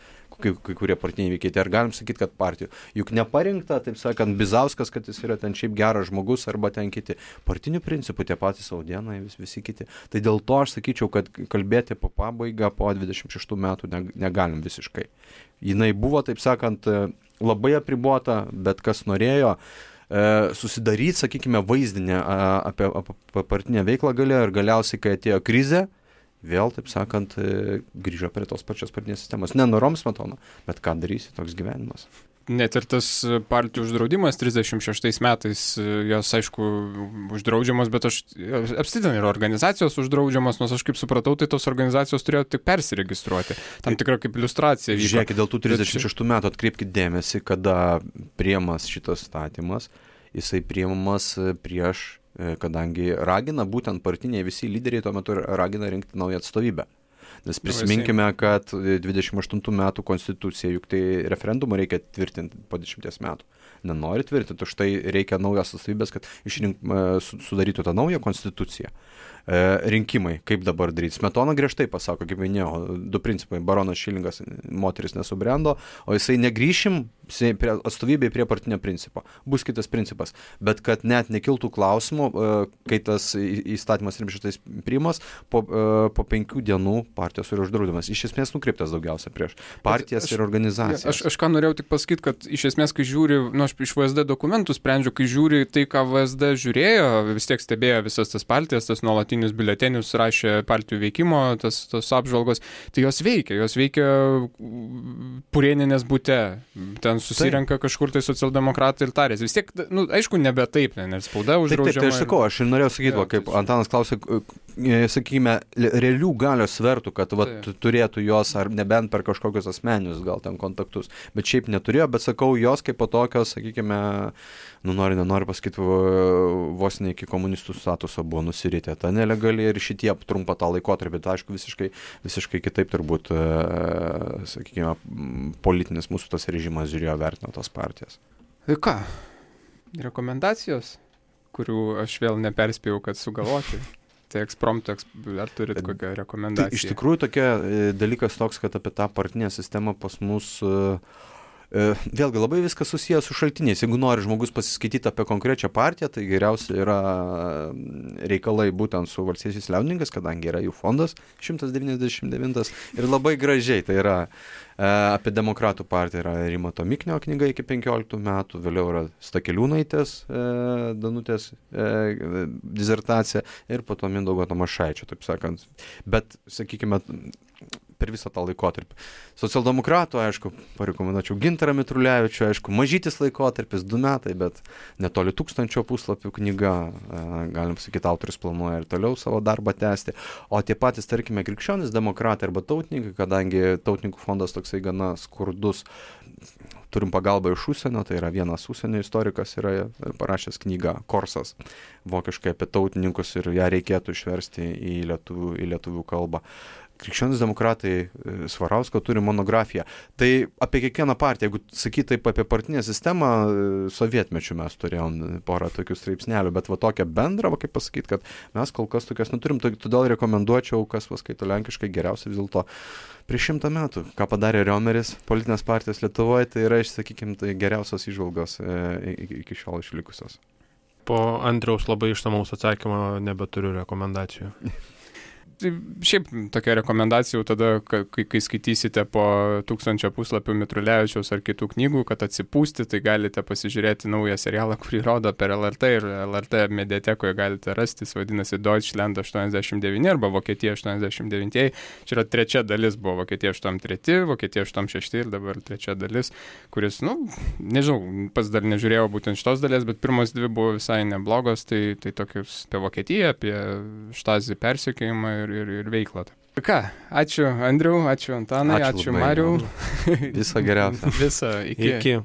kai kurie partiniai veikiai, tai ar galim sakyti, kad partijų, juk neparinkta, taip sakant, Bizauskas, kad jis yra ten šiaip geras žmogus, arba ten kiti. Partinių principų tie patys Saudienai, visi kiti. Tai dėl to aš sakyčiau, kad kalbėti po pabaigą, po 26 metų negalim visiškai. Jinai buvo, taip sakant, labai apribota, bet kas norėjo susidaryti, sakykime, vaizdinę apie partinę veiklą galėjo ir galiausiai, kai atėjo krizė, vėl, taip sakant, grįžo prie tos pačios partinės sistemos. Nenorom Smetona, bet ką darysi, toks gyvenimas. Net ir tas partijų uždraudimas 36 metais, jos, aišku, uždraudžiamos, bet apsitin yra organizacijos uždraudžiamos, nors aš kaip supratau, tai tos organizacijos turėjo tik persiregistruoti. Tam tikra kaip iliustracija. Žiūrėkit, dėl tų 36 metų atkreipkite dėmesį, kada priimamas šitas statymas, jisai priimamas prieš, kadangi ragina, būtent partiniai visi lyderiai tuo metu ragina rinkti naują atstovybę. Nes prisiminkime, kad 28 metų konstitucija, juk tai referendumą reikia tvirtinti po 10 metų. Nenori tvirtinti, už tai reikia naujos atstovybės, kad sudarytų tą naują konstituciją. Rinkimai, kaip dabar daryti. Smetona griežtai pasako, kaip minėjau, du principai. Baronas Šilingas, moteris nesubrendo, o jisai negrįšim atstovybėje prie partinio principo. Bus kitas principas. Bet kad net nekiltų klausimų, kai tas įstatymas 36 priimas, po 5 dienų partijos yra uždraudimas. Iš esmės nukreiptas daugiausia prieš partijas ir organizacijas. Aš ką norėjau tik pasakyti, kad iš esmės, kai žiūri, aš iš VSD dokumentų sprendžiu, kai žiūri tai, ką VSD žiūrėjo, vis tiek stebėjo visas tas partijas, tas nuolatinius biuletenius, rašė partijų veikimo, tas apžvalgos, tai jos veikia Purėninės bute, ten susirenka kažkur tai socialdemokratai ir tarės. Vis tiek, aišku, nebe taip, nes spauda uždraudžiama. Taip, tai aš sakau, aš ir norėjau sakyti, kaip Antanas klausė, sakykime, realių galios svertų, kad turėtų jos, ar nebent per kažkokius asmeninius gal ten kontaktus, bet šiaip neturėjo, bet sakau, jos kaip po tokios, sakykime, nenori pasakyti, vos ne iki komunistų statuso buvo nusiritę. Ta nelegali ir šitie trumpa tą laikotarpį, tai aišku, visiškai kitaip turbūt, sakykime, politinis mūsų tas režimas žiūrėjo, vertino tos partijas. Tai ką? Rekomendacijos, kurių aš vėl neperspėjau, kad sugalvoti. Tai ekspromto, ar turit kokią rekomendaciją? Tai iš tikrųjų tokia dalykas toks, kad apie tą partinę sistemą pas mus vėlgi labai viskas susijęs su šaltiniais. Jeigu nori žmogus pasiskaityti apie konkrečią partiją, tai geriausia yra reikalai būtent su Valstiečiais liaudininkas, kadangi yra jų fondas 199 ir labai gražiai, tai yra apie demokratų partiją yra Rimanto Miknio knyga iki 15 metų, vėliau yra Stakeliūnaitės Danutės disertacija ir po to Mindaugo Tamošaičio, taip sakant. Bet, sakykime, per visą tą laikotarpį. Socialdemokratų, aišku, parekomenduočiau Gintarą Mitrulevičių, aišku, mažytis laikotarpis, 2 metai, bet netoli 1000 puslapių knyga, galim sakyti, autorius planuoja ir toliau savo darbą tęsti. O tie patys, tarkime, krikščionys demokratai arba tautininkai, kadangi tautininkų fondas toksai gana skurdus, turim pagalbą iš užsienio, tai yra vienas užsienio istorikas yra parašęs knygą Korsas, vokiškai apie tautininkus ir ją reikėtų išversti į lietuvių kalbą. Krikščionys demokratai Svarausko turi monografiją. Tai apie kiekvieną partiją, jeigu sakyti taip apie partinę sistemą, sovietmečių mes turėjom porą tokių straipsnelių, bet va tokią bendrą, va kaip pasakyti, kad mes kol kas tokias neturim, todėl rekomenduočiau, kas paskaito lenkiškai, geriausia vis dėlto prieš 100 metų, ką padarė Riomeris, politinės partijos Lietuvoje, tai yra, sakykime, tai geriausios įžvalgos iki šiol išlikusios. Po Andriaus labai išsamaus atsakymo nebeturiu rekomendacijų. Šiaip tokia rekomendacija jau tada, kai skaitysite po 1000 puslapių Mitrulevičiaus ar kitų knygų, kad atsipūsti, tai galite pasižiūrėti naują serialą, kurį rodo per LRT ir LRT mediatekoje galite rasti, jis vadinasi Deutschland 89 arba Vokietija 89. Čia yra trečia dalis, buvo Vokietija 83, Vokietija 86 ir dabar trečia dalis, kuris, nežinau, pats dar nežiūrėjau būtent šitos dalies, bet pirmos dvi buvo visai neblogos, tai tokius apie Vokietiją, apie Štazį persekiojimą ir veiklą. Ką, ačiū Andriau, ačiū Antanai, ačiū Mariau. Viso geriausio. Viso, iki.